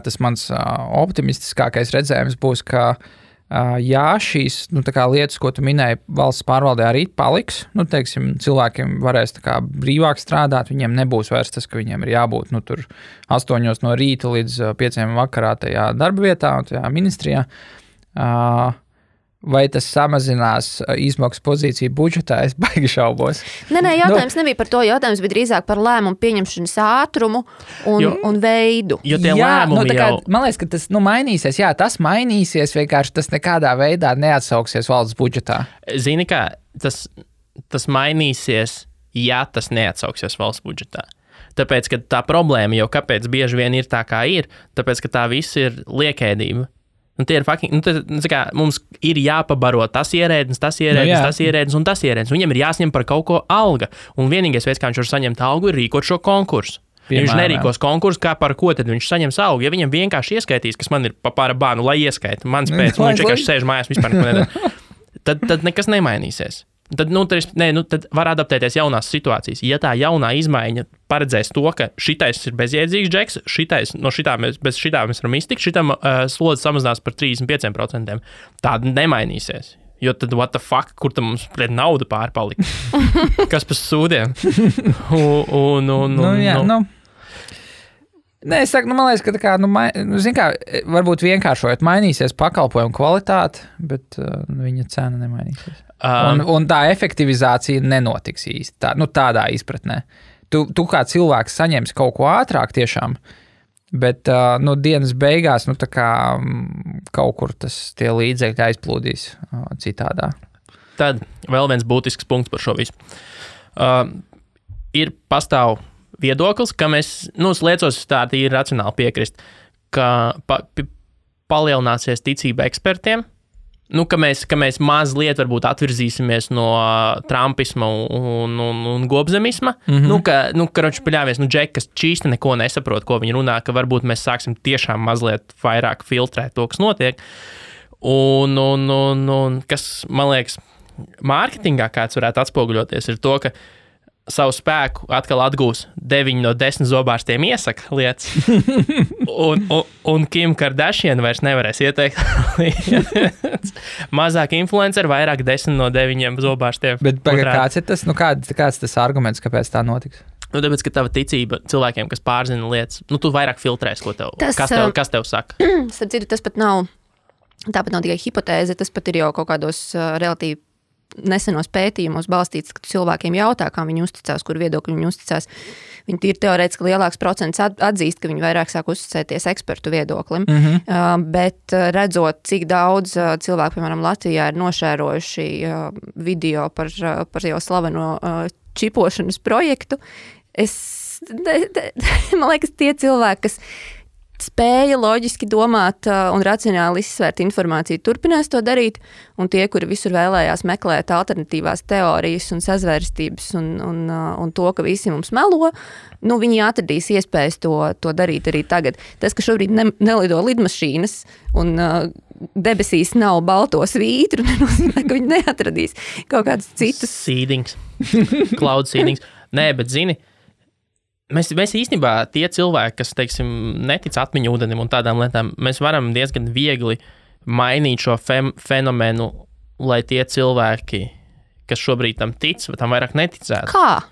tas mans optimistiskākais redzējums būs, ka šīs lietas, ko tu minēji, valsts pārvaldē arī paliks. Teiksim, cilvēkiem varēs brīvāk strādāt, viņiem nebūs vairs tas, ka viņiem ir jābūt tur 8 no rīta līdz 5 vakarā tajā darba vietā un tajā ministrijā. Vai tas samazinās izmaksu pozīciju budžetā? Es baigi šaubos. Nē, jautājums nebija par to. Jautājums bija drīzāk par lēmumu pieņemšanas ātrumu un veidu. Jo tie lēmumi man liekas, ka tas mainīsies. Jā, tas mainīsies, vienkārši tas nekādā veidā neatsauksies valsts budžetā. Zini kā, tas mainīsies, ja tas neatsauksies valsts budžetā. Tāpēc, ka tā problēma jau kāpēc bieži vien ir tā, kā ir, tāpēc, ka tā viss ir liekēdība. Tie ir fucking, kā, mums ir jāpabaro tas ierēdnis, tas ierēdnis un tas ierēdnis. Viņam ir jāsņem par kaut ko alga. Un vienīgais veids, kā viņš var saņemt algu, ir rīkot šo konkursu. Ja viņš nerīkos konkursu, kā par ko tad viņš saņems algu. Ja viņam vienkārši ieskaitīs, kas man ir pāra bānu, lai ieskaita, mans pēc, un viņš vienkārši sēž mājās vispār neko nedara, tad nekas nemainīsies. Tad var adaptēties jaunās situācijas. Ja tā jaunā izmaiņa paredzēs to, ka šitais ir bezjēdzīgs džeks, bez šitā mēs varam iztikt, šitam slodzi samazinās par 35%, tāda nemainīsies. Jo tad, what the fuck, kur tam mums nauda pārpalika? Kas pa sūdiem? Nē, es saku, man liekas, ka varbūt vienkāršojot mainīsies pakalpojumu kvalitāte, bet viņa cena nemainīsies. Un tā efektivizācija nenotiks īsti, tādā izpratnē. Tu kā cilvēks saņemsi kaut ko ātrāk tiešām, bet dienas beigās kaut kur tie līdzekļi aizplūdīs citādā. Tad vēl viens būtisks punkts par šo visu. Pastāv viedoklis, ka mēs, liecos tā ir racionāli piekrist, ka palielināsies ticība ekspertiem, ka mēs mazliet varbūt atvirzīsimies no trumpisma un gobzemisma, karoči paļāvies, džeki, kas čīsti neko nesaprot, ko viņi runā, ka varbūt mēs sāksim tiešām mazliet vairāk filtrēt to, kas notiek. Un kas, man liekas, mārketingā kāds varētu atspoguļoties, ir to, ka savu spēku atkal atgūs 9 no 10 zobārstiem iesaka lietas, un Kim Kardashian vairs nevarēs ieteikt lietas. Mazāk influenceri, vairāk 10 no 9 zobārstiem. Bet kāds ir tas, kāds tas arguments, kāpēc tā notiks? Tāpēc, ka tava ticība cilvēkiem, kas pārzina lietas, tu vairāk filtrēs, kas tev saka. Starp citu, tas pat nav tikai hipotēze, tas pat ir jau kaut kādos relatīvi nesenos pētījumos balstīts, ka cilvēkiem jautā, kā viņi uzticās, kur viedokļi viņi uzticās. Viņi ir teorētiski lielāks procents atzīst, ka viņi vairāk sāk uzticēties ekspertu viedoklim. Bet redzot, cik daudz cilvēku, piemēram, Latvijā ir nošērojuši video par jau slaveno čipošanas projektu, man liekas, tie cilvēki, kas spēja loģiski domāt un racionāli izsvērt informāciju, turpinās to darīt, un tie, kuri visur vēlējās meklēt alternatīvās teorijas un sazvērstības un to, ka visi mums melo, viņi atradīs iespējas to darīt arī tagad. Tas, ka šobrīd nelido lidmašīnas un debesīs nav balto svītru, nenozīmē, ka viņi neatradīs kaut kādus citus. Seedings. Cloud seedings. Nē, bet zini, Mēs īstenībā tie cilvēki, kas, teiksim, netic atmiņu ūdenim un tādām lietām, mēs varam diezgan viegli mainīt šo fenomenu, lai tie cilvēki, kas šobrīd tam tic, tam vairāk neticētu. Kā?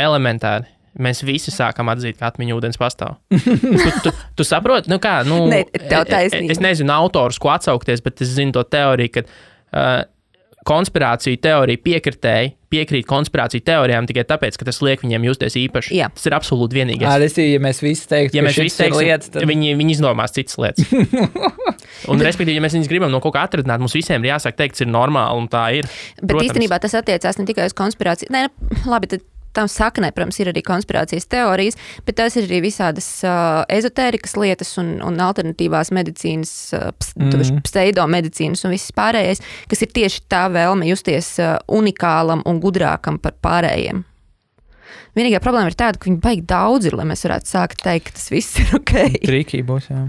Elementāri. Mēs visi sākam atzīt, ka atmiņu ūdens pastāv. Tu saproti? Ne, tev taisnība. Es nezinu autors, ko atsaukties, bet es zinu to teoriju, ka konspirāciju teorija piekrīt konspirāciju teorijām tikai tāpēc, ka tas liek viņiem justies īpaši. Jā. Tas ir absolūti vienīgais. Ja mēs visi teiktu, ka šis ir lietas, tad viņi izdomās citas lietas. Un, respektīvi, ja mēs viņus gribam no kaut kā atradināt, mums visiem ir jāsāk teikt, tas ir normāli, un tā ir. Bet īstenībā tas attiecās ne tikai uz konspirāciju. Nē, labi, tad tam saknē, protams, ir arī konspirācijas teorijas, bet tās ir arī visādas ezotērikas lietas un alternatīvās medicīnas, pseidomedicīnas un viss pārējais, kas ir tieši tā vēlme justies unikālam un gudrākam par pārējiem. Vienīgā problēma ir tāda, ka viņi baigi daudz ir, lai mēs varētu sākt teikt, ka tas viss ir ok. Trīkī būs, jā.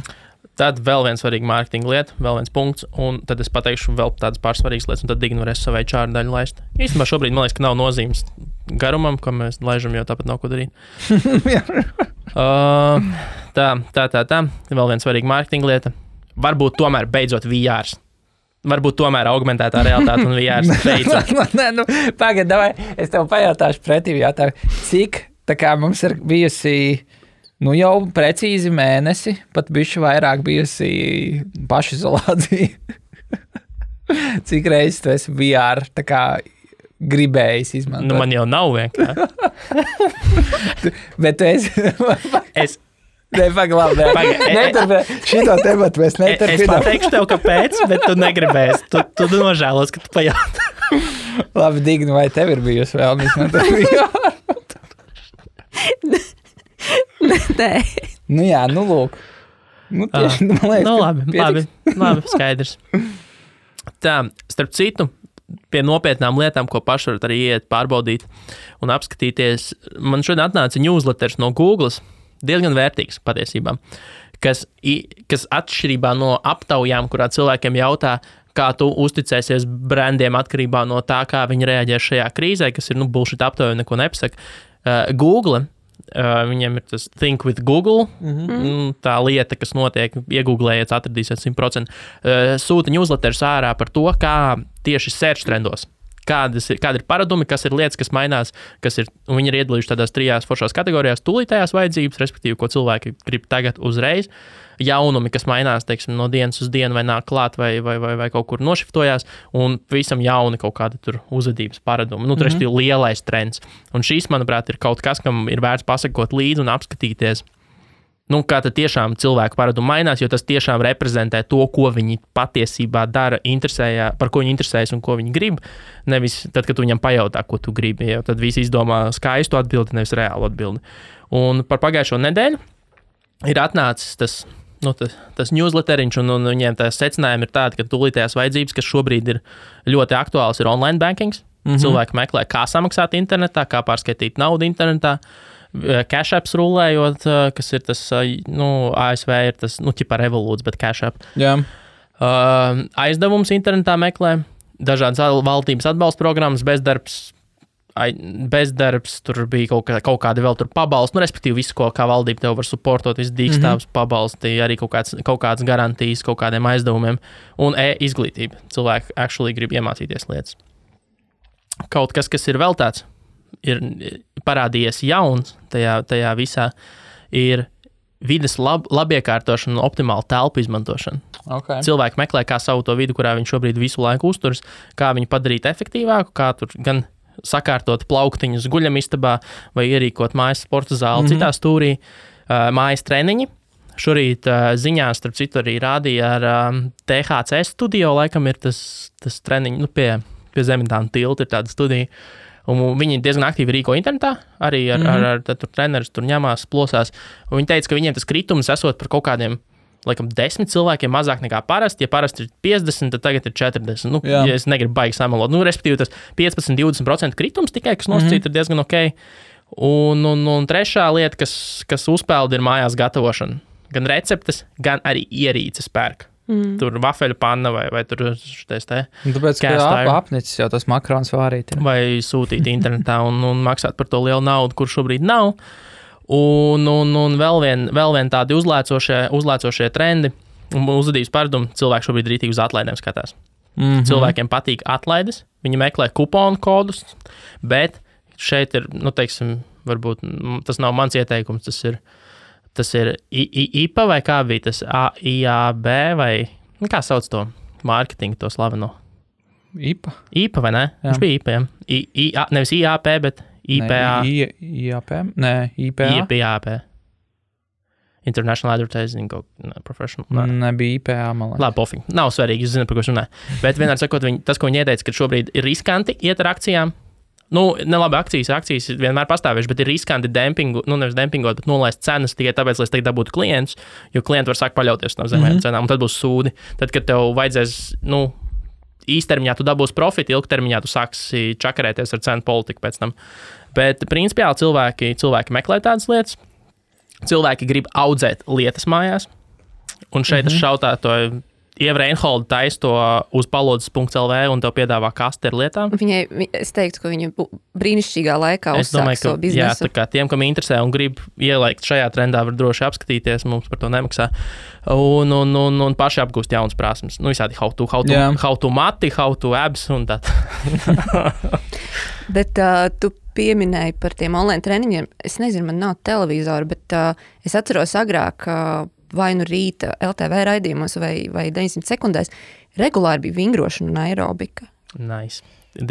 Tad vēl viens svarīga mārketinga lieta, vēl viens punkts, un tad es pateikšu vēl tādas pārsvarīgas lietas, un tad Digna varēs savai čāru daļu laist. Īstenībā šobrīd man liekas, ka nav nozīmes garumam, ko mēs laižam, jo tāpat nav ko darīt. Tā. Vēl viens svarīga mārketinga lieta. Varbūt tomēr beidzot VRs. Varbūt tomēr augmentētā realitāte un VRs beidzot. Pagad, davai, es tev pajautāšu pretī jautājumu. Cik tā kā mums ir bijusi jau precīzi mēnesi, pat bišķi vairāk bijusi pašizolācija. Cik reizes tu esi VR tā kā gribējis izmantot? Man jau nav vienkārši. Bet tu esi... Neturpināt. Šito tematu mēs neturpināt. Es pateikšu tev, kāpēc, bet tu negribēsi. Tu nožēlos, ka tu pajautā. Labi, Digna, vai tev ir bijusi vēl izmantot VR? Nē. Jā, lūk. Tieši, man liekas, labi, skaidrs. Tā, starp citu, pie nopietnām lietām, ko paši varat arī iet pārbaudīt un apskatīties. Man šodien atnāca newsletters no Google, diezgan vērtīgs patiesībā, kas atšķirībā no aptaujām, kurā cilvēkiem jautā, kā tu uzticēsies brandiem atkarībā no tā, kā viņi reaģē šajā krīzē, kas ir, bullshit aptauja, neko nepasaka. Google, viņiem ir tas Think with Google, tā lieta, kas notiek, iegooglējiet, atradīsiet 100%, sūta newsletters ārā par to, kā tieši search trendos. Kādi ir paradumi, kas ir lietas, kas mainās, un viņi ir iedalījuši tādās 3 foršās kategorijās, tūlītējās vajadzības, respektīvi, ko cilvēki grib tagad uzreiz, jaunumi, kas mainās, teiksim, no dienas uz dienu vai nāk klāt vai kaut kur nošiftojās, un visam jauni kaut kāda tur uzvedības paradumi. Respektīvi, lielais trends. Un šīs, manuprāt, ir kaut kas, kam ir vērts pasakot līdzi un apskatīties, kā tad tiešām cilvēku paradumi mainās, jo tas tiešām reprezentē to, ko viņi patiesībā dara, par ko viņi interesējas un ko viņi grib. Nevis tad, kad tu viņam pajautā, ko tu gribi, jo tad visi izdomā skaistu atbildi, nevis reālu atbildi. Un par pagājušo nedēļu ir atnācis tas newsletteriņš, un viņiem tā secinājumi ir tādi, ka tūlītējās vajadzības, kas šobrīd ir ļoti aktuāls, ir online bankings. Cilvēki meklē, kā samaksāt internetā, kā pārskaitīt naudu internetā. Cash apps rulējot, kas ir tas, ASV ir tas, ķipa Revolūts, bet Cash app. Jā. Aizdevums internetā meklē, dažādas valdības atbalsta programmas, bezdarbs, tur bija kaut kādi vēl tur pabalsti, respektīvi visu, kā valdība tev var supportot, visu dīkstāvs pabalsti, arī kaut kādas garantijas kaut kādiem aizdevumiem, un izglītība. Cilvēki actually grib iemācīties lietas. Kaut kas ir vēl tāds, ir parādījies jauns tajā visā, ir vides labiekārtošana un optimāla telpu izmantošana. Okay. Cilvēki meklē, kā savu to vidu, kurā viņš šobrīd visu laiku uzturas, kā viņu padarīt efektīvāku, kā tur gan sakārtot plauktiņus guļamistabā vai ierīkot mājas sporta zāli citā stūrī, mājas treniņi. Šorīt ziņās, starp citu, arī rādīja ar THC studio, laikam ir tas treniņi, pie Zemitāna tilta ir tāda studija. Un viņi diezgan aktīvi rīko internetā, arī ar trenerus tur ņemās, plosās. Un viņi teica, ka viņiem tas kritums esot par kaut kādiem, laikam, 10 cilvēkiem mazāk nekā parasti. Ja parasti ir 50, tad tagad ir 40. Ja es negribu baigi samalot. Respektīvi, tas 15-20% kritums tikai, kas nosacīt, ir diezgan ok. Un trešā lieta, kas uzpeld, ir mājās gatavošana. Gan receptes, gan arī ierīces pērk. Tur vafeļu panna vai tur šitais te. Tāpēc, ka apnicis jau tas makarons vārīt. Vai sūtīt internetā un maksāt par to lielu naudu, kur šobrīd nav. Un vēl vien tādi uzlēcošie trendi un uzvedības paradumi. Cilvēki šobrīd rītīgi uz atlaidēm skatās. Cilvēkiem patīk atlaides, viņi meklē kuponu kodus, bet šeit ir, teiksim, varbūt tas nav mans ieteikums, tas ir IPA vai kā bija tas IAB vai, kā sauc to mārketingu, to slaveno? IPA? IPA vai ne? Jā. Viņš bija IPA, ja? Nevis IAP, bet IPA. IAP? Nē, IPA. IPA. International Advertising Professional. Nebija IPA, man liekas. Labi, pofīgi. Nav svarīgi, es zinu, par ko es runāju. Bet vienmēr sakot, tas, ko viņi ieteica, ka šobrīd ir riskanti iet ar akcijām. Nelabi akcijas vienmēr pastāvējuši, bet ir riskanti dempingu, nevis dempingot, bet nolaist cenas tikai tāpēc, lai es tagad dabūtu klientus, jo klienti var sākt paļauties no zemējām cenām, un tad būs sūdi. Tad, kad tev vajadzēs, īstermiņā tu dabūsi profitu, ilgtermiņā tu sāksi čakarēties ar cenu politiku pēc tam. Bet principiāli cilvēki meklē tādas lietas, cilvēki grib audzēt lietas mājās, un šeit es šautētoju Ieva Reinholda taisa to uz palodzes.lv un tev piedāvā kasti ar lietām. Es teiktu, ka viņa brīnišķīgā laikā uzsāk savu biznesu. Jā, tā kā tiem, kam interesē un grib ielikt šajā trendā, var droši apskatīties, mums par to nemaksā. Un paši apgūst jaunas prasmes. Visādi how to mati, how to abs un tā. Bet tu pieminēji par tiem online treniņiem. Es nezinu, man nav televizora, bet es atceros agrāk, vai nu rīta LTV raidījumos vai 900 sekundēs, regulāri bija vingrošana un aerobika. Nice.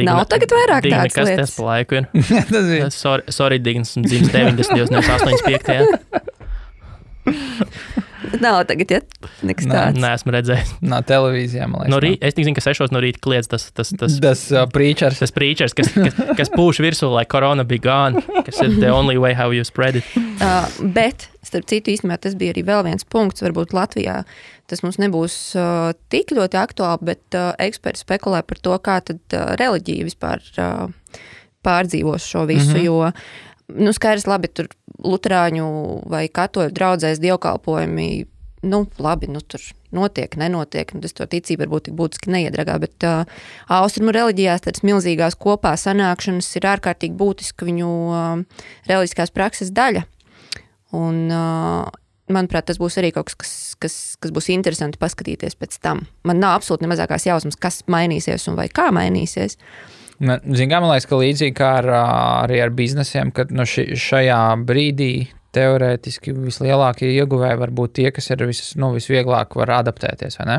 Nav tagad vairāk tādas kas lietas. Tas pa laiku ir? Sorry, Dignas, dzimis 90, nevis 85. Nav tagad, ja? Nekas tāds. Nē, esmu redzējis. No televīzijā, man liekas. Es tik zinu, ka 6 no rīta kliedz tas preachers. Tas preachers, kas pūš virsū, lai korona be gone, kas ir the only way how you spread it. Bet, starp citu, īstenībā tas bija arī vēl viens punkts, varbūt Latvijā tas mums nebūs tik ļoti aktuāli, bet eksperti spekulē par to, kā tad reliģija vispār pārdzīvos šo visu, jo skaidrs, labi, tur luterāņu vai katoļu draudzēs dievkalpojumi, labi, tur notiek, nenotiek, tas to ticību varbūt tik būtiski neiedragā, bet austrumu reliģijās tādas milzīgās kopā sanākšanas ir ārkārtīgi būtiska viņu reliģiskās prakses daļa. Un, manuprāt, tas būs arī kaut kas būs interesanti paskatīties pēc tam. Man nav absolūti nemazākās jausmas, kas mainīsies un vai kā mainīsies. Man liekas, ka līdzīgi kā arī ar biznesiem, kad šajā brīdī teorētiski vislielākie ieguvēji var būt tie, kas ir visvieglāk var adaptēties, vai ne?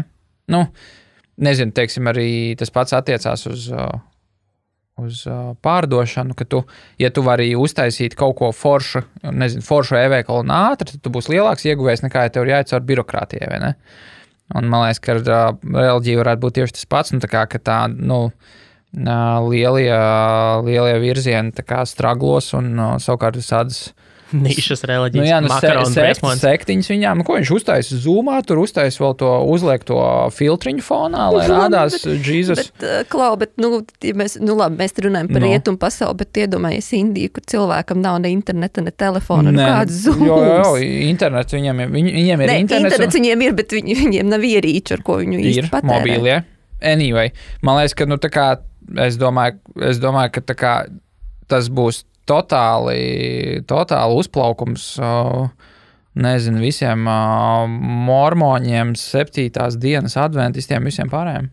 Nezinu, teiksim, arī tas pats attiecās uz pārdošanu, ka ja tu vari uztaisīt kaut ko foršu e-veikalu un ātri, tad tu būsi lielāks ieguvējs nekā, ja tev ir jāiet caur birokrātijai, vai ne? Un man liekas, ka reliģija varētu būt tieši tas pats, lielie virzieni tā kā straglos un savukārt visādas nišas reliģijas, sektiņas viņām, ko viņš uztaisa Zoomā, tur uztaisa vēl to, uzliek to filtriņu fonā, lai rādās Jesus. Ja mēs runājam par rietumu pasauli, bet iedomājies Indiju, kur cilvēkam nav ne interneta, ne telefona, kāds Zooms. Jo, internets viņiem ir internets viņiem ir, bet viņiem nav ierīču, ar ko viņu īsti patērē. Ir mobīlie. Anyway, man liekas, ka tā kā es domāju, ka tā kā tas būs totāli uzplaukums, nezinu, visiem mormoņiem, 7. dienas adventistiem, visiem pārējiem.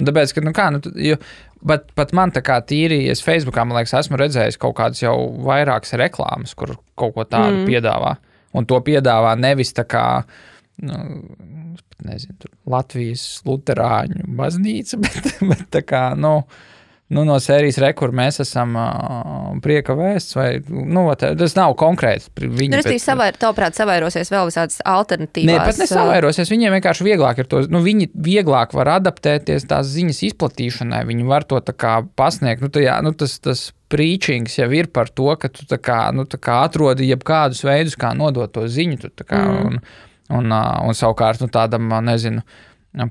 Tāpēc, ka, pat man tā kā tīri, es Facebookā, man liekas, esmu redzējis kaut kādas jau vairākas reklāmas, kur kaut ko tādu piedāvā. Un to piedāvā nevis tā kā, nezinu, Latvijas luterāņu baznīca, bet tā kā, no sērijas kur mēs esam prieka vēsts, vai, tas nav konkrēts. Tavuprāt, savairosies vēl visādas alternatīvās. Nē, pat nesavairosies, viņiem vienkārši vieglāk ir to, viņi vieglāk var adaptēties tās ziņas izplatīšanai, viņi var to tā kā pasniegt, tas preachings jau ir par to, ka tu tā kā atrodi jebkādus veidus, kā nodot to ziņu, tu tā kā, un savukārt, tādam, nezinu,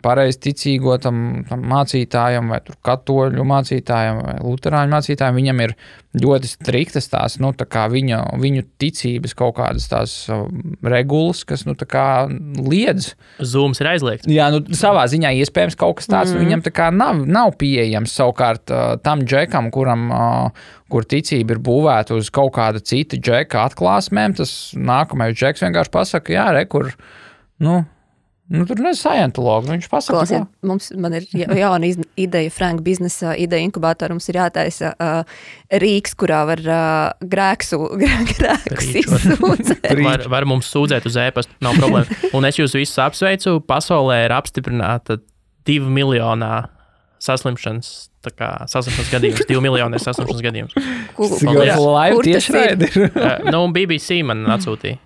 pareizi ticīgo tam mācītājam vai tur katoļu mācītājam vai luterāņu mācītājam, viņam ir ļoti striktas tās, tā kā viņu ticības kaut kādas tās regulas, kas, tā kā liedz. Zooms ir aizliegts. Jā, savā ziņā iespējams kaut kas tāds, viņam tā kā nav pieejams savukārt tam džekam, kur ticība ir būvēta uz kaut kāda cita džeka atklāsmēm, tas nākamais džeks vienkārši pasaka, jā, kur, tur nezinu, scientologu, viņš pasaka. Klausiet, man ir jauna ideja, Frank biznesa ideja inkubātora, mums ir jātaisa rīks, kurā var grēkus izsūdzēt. Var mums sūdzēt uz e-pastu, nav problēma. Un es jūs visus apsveicu, pasaulē ir apstiprināta 2 miljonā saslimšanas gadījums, 2 miljoni ir saslimšanas gadījums. Live tieši raidi ir. BBC man atsūtīja.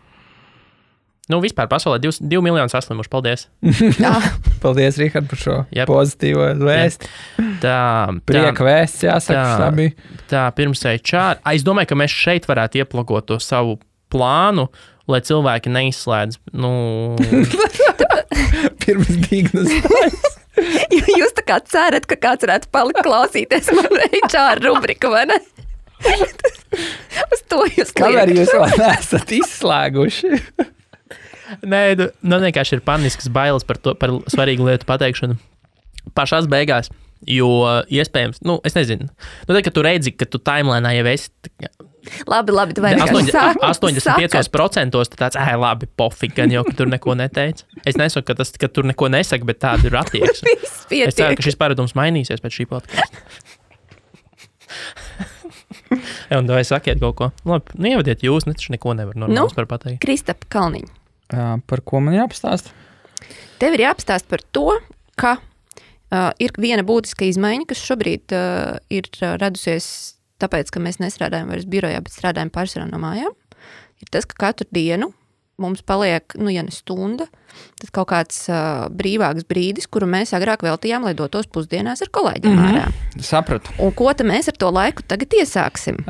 Vispār pasaulē 2 miljoni saslimuši. Paldies. Paldies, Rihard, par šo pozitīvo vēsti. Prieka vēsts, jāsaka. Tā pirms HR. Es domāju, ka mēs šeit varētu ieplakot to savu plānu, lai cilvēki neizslēdz. Pirms dignas. Jūs tā kā cerat, ka kāds varētu palikt klausīties man HR rubrika, vai ne? Uz to jūs kliekat. Kamēr jūs vēl neesat izslēguši? Nē, vienkārši ir paniskas bailes par svarīgu lietu pateikšanu pašās beigās, jo iespējams, es nezinu, tad, kad tu redzi, ka tu timelinā jau esi... Labi, tu vai vienkārši 85% tu tāds, labi, pofik, gan jau, ka tur neko neteici. Es nesaku, ka tur neko nesaka, bet tāda ir attieksme. Es ceru, ka šis paradums mainīsies pēc šī podkasta. Un vai sakiet kaut ko? Labi, ievadiet jūs, taču neko nevar normāls par pateikt. Kristapa Kalniņa. Par ko man jāapstāst? Tev ir jāapstāst par to, ka ir viena būtiska izmaiņa, kas šobrīd ir radusies tāpēc, ka mēs nestrādājam vairs birojā, bet strādājam pārsvarā no mājām. Ir tas, ka katru dienu mums paliek, ja ne stunda, tad kaut kāds brīvāks brīdis, kuru mēs agrāk veltījām, lai dotos pusdienās ar kolēģiem ārā. Sapratu. Un ko tad mēs ar to laiku tagad iesāksim?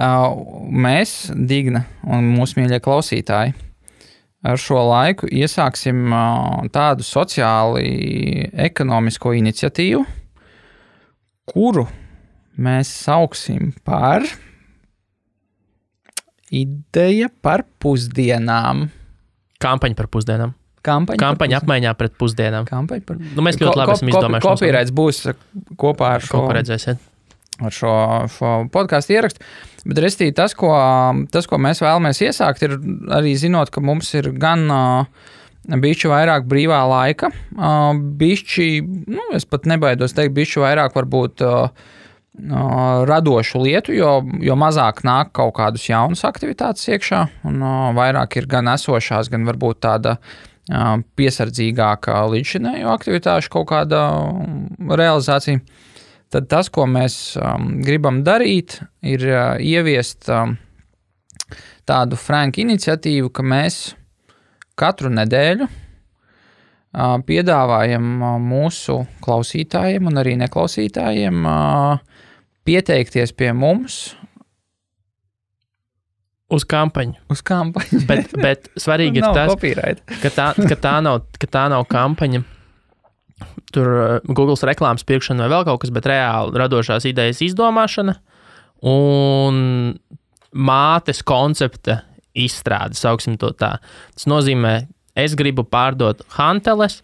Mēs, Digna un mūsu mīļie klausītāji, ar šo laiku iesāksim tādu sociāli ekonomisko iniciatīvu, kuru mēs sauksim par ideja par pusdienām. Kampaņa par pusdienām. Kampaņa apmaiņā pret pusdienām. Mēs ļoti labi esam izdomājuši. Kopīraits būs kopā ar šo, ar šo podcastu ierakstu. Bet restī tas, ko mēs vēlamies iesākt, ir arī zinot, ka mums ir gan bišķi vairāk brīvā laika, bišķi, es pat nebaidos teikt, bišķi vairāk varbūt radošu lietu, jo mazāk nāk kaut kādus jaunus aktivitātes iekšā, un vairāk ir gan esošās, gan varbūt tāda piesardzīgāka līdzšinējo aktivitāšu kaut kāda realizācija. Tad tas, ko mēs gribam darīt, ir ieviest tādu franku iniciatīvu, ka mēs katru nedēļu piedāvājam mūsu klausītājiem un arī neklausītājiem pieteikties pie mums uz kampaņu. Bet svarīgi ir tas, ka tā nav kampaņa. Tur Googles reklāmas pirkšana vai vēl kaut kas, bet reāli radošās idejas izdomāšana un mātes koncepta izstrāde, sauksim to tā. Tas nozīmē, es gribu pārdot hanteles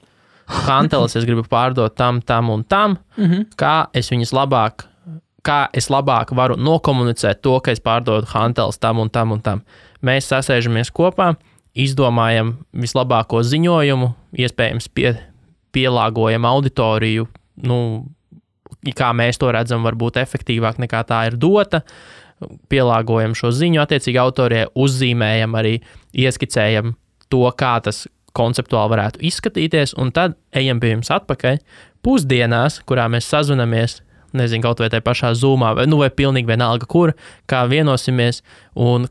es gribu pārdot tam un tam, kā es labāk varu nokomunicēt to, ka es pārdodu hanteles tam un tam un tam. Mēs sasēžamies kopā, izdomājam vislabāko ziņojumu, iespējams pielāgojam auditoriju, kā mēs to redzam, varbūt efektīvāk nekā tā ir dota, pielāgojam šo ziņu attiecīgi autorijai, uzzīmējam arī, ieskicējam to, kā tas konceptuāli varētu izskatīties, un tad ejam pie jums atpakaļ pusdienās, kurā mēs sazvanamies, nezinu, kaut vai tajā pašā Zoomā, vai pilnīgi vienalga, kur, kā vienosimies, un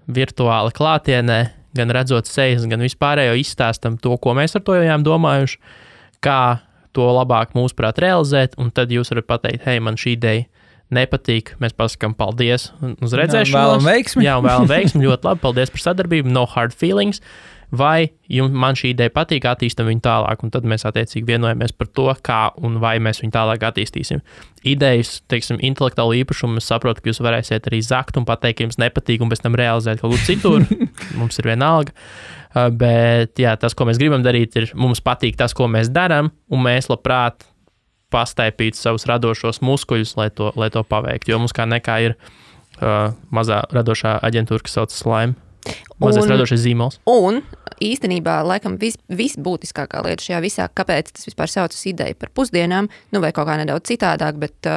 virtuāli klātienē, gan redzot sejas, gan vispārējo izstāstam to, ko mēs ar to jau domājuši, kā to labāk mūsuprāt realizēt, un tad jūs varat pateikt, hei, man šī ideja nepatīk, mēs pasakām paldies uz redzēšanos. Vēlam veiksmi, ļoti labi, paldies par sadarbību, no hard feelings, vai man šī ideja patīk, attīstam viņu tālāk, un tad mēs attiecīgi vienojamies par to, kā un vai mēs viņu tālāk attīstīsim. Idejas, teiksim, intelektuālu īpašumu, es saprotu, ka jūs varēsiet arī zakt un pateikt, ka jums nepatīk, un pēc tam realizēt kaut ko citur, mums ir vienalga, bet jā, tas, ko mēs gribam darīt, ir mums patīk tas, ko mēs darām, un mēs labprāt pastaipīt savus radošos muskuļus, lai to paveiktu, jo mums kā nekā ir mazā radošā aģentūra, kas saucas Slime. Mazais radošais zīmols. Un īstenībā, laikam, visbūtiskākā lieta šajā visā, kāpēc tas vispār saucas ideja par pusdienām, vai kaut kā nedaudz citādāk, bet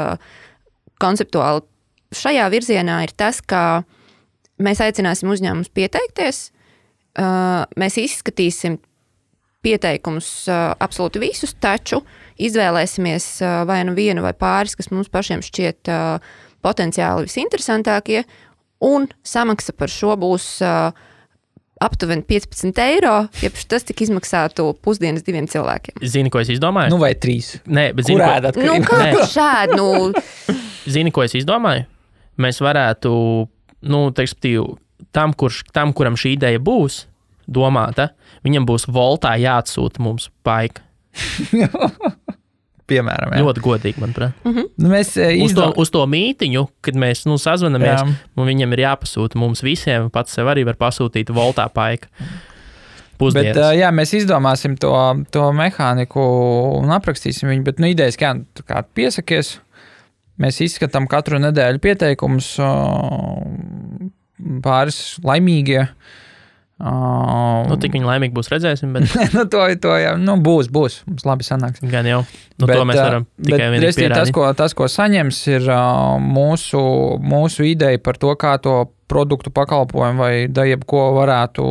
konceptuāli šajā virzienā ir tas, ka mēs aicināsim uzņēmumus pieteikties, mēs izskatīsim pieteikumus absolūti visus, taču izvēlēsimies vai nu vienu vai pāris, kas mums pašiem šķiet potenciāli visinteresantākie, un samaksa par šo būs aptuveni 15 €, ja tas tik izmaksātu pusdienas 2 cilvēkiem. Zini, ko es izdomāju? Vai 3? Nē, bet zini, kā tu šādi? Zini, ko es izdomāju? Mēs varētu, tam, kuram šī ideja būs domāta, viņam būs voltā jāatsūta mums paika. Piemēram, jā. Ļoti godīgi, manuprāt. Mēs uz to mītiņu, kad mēs sazvanamies, un viņam ir jāpasūta mums visiem, pats sev arī var pasūtīt voltā paika. Pusdienas. Bet, mēs izdomāsim to mehāniku un aprakstīsim viņu, bet idejas, kā piesakies, mēs izskatām katru nedēļu pieteikumus, pāris laimīgie. Tik viņi laimīgi būs, redzēsim, bet... to jau, būs, mums labi sanāks. Gan jau, to mēs varam tikai vienīgi pierādīt. Tas, ko saņems, ir mūsu ideja par to, kā to produktu pakalpojumu vai jebko varētu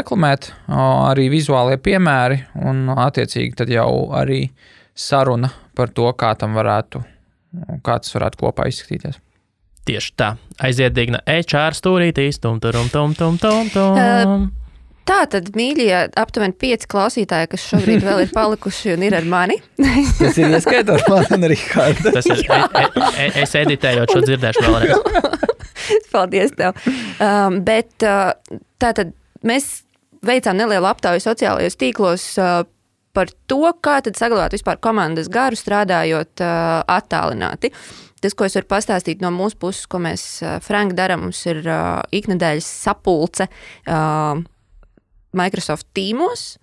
reklamēt, arī vizuālie piemēri, un attiecīgi tad jau arī saruna par to, kā tas varētu kopā izskatīties. Tieši tā. Aiziet digna HR stūrītīs. Tum. Tā tad, mīļie, aptuveni 5 klausītāji, kas šobrīd vēl ir palikuši un ir ar mani. Tas ir ieskaitot man un Rihardu. Tas ir, es editējot šo dzirdēšu vēlreiz. Paldies tev. Bet tātad mēs veicām nelielu aptauju sociālajos tīklos par to, kā tad saglabāt vispār komandas garu strādājot attālināti. Tas, ko es varu pastāstīt no mūsu puses, ko mēs, Frank, darām, mums ir iknedēļas sapulce Microsoft Teamos,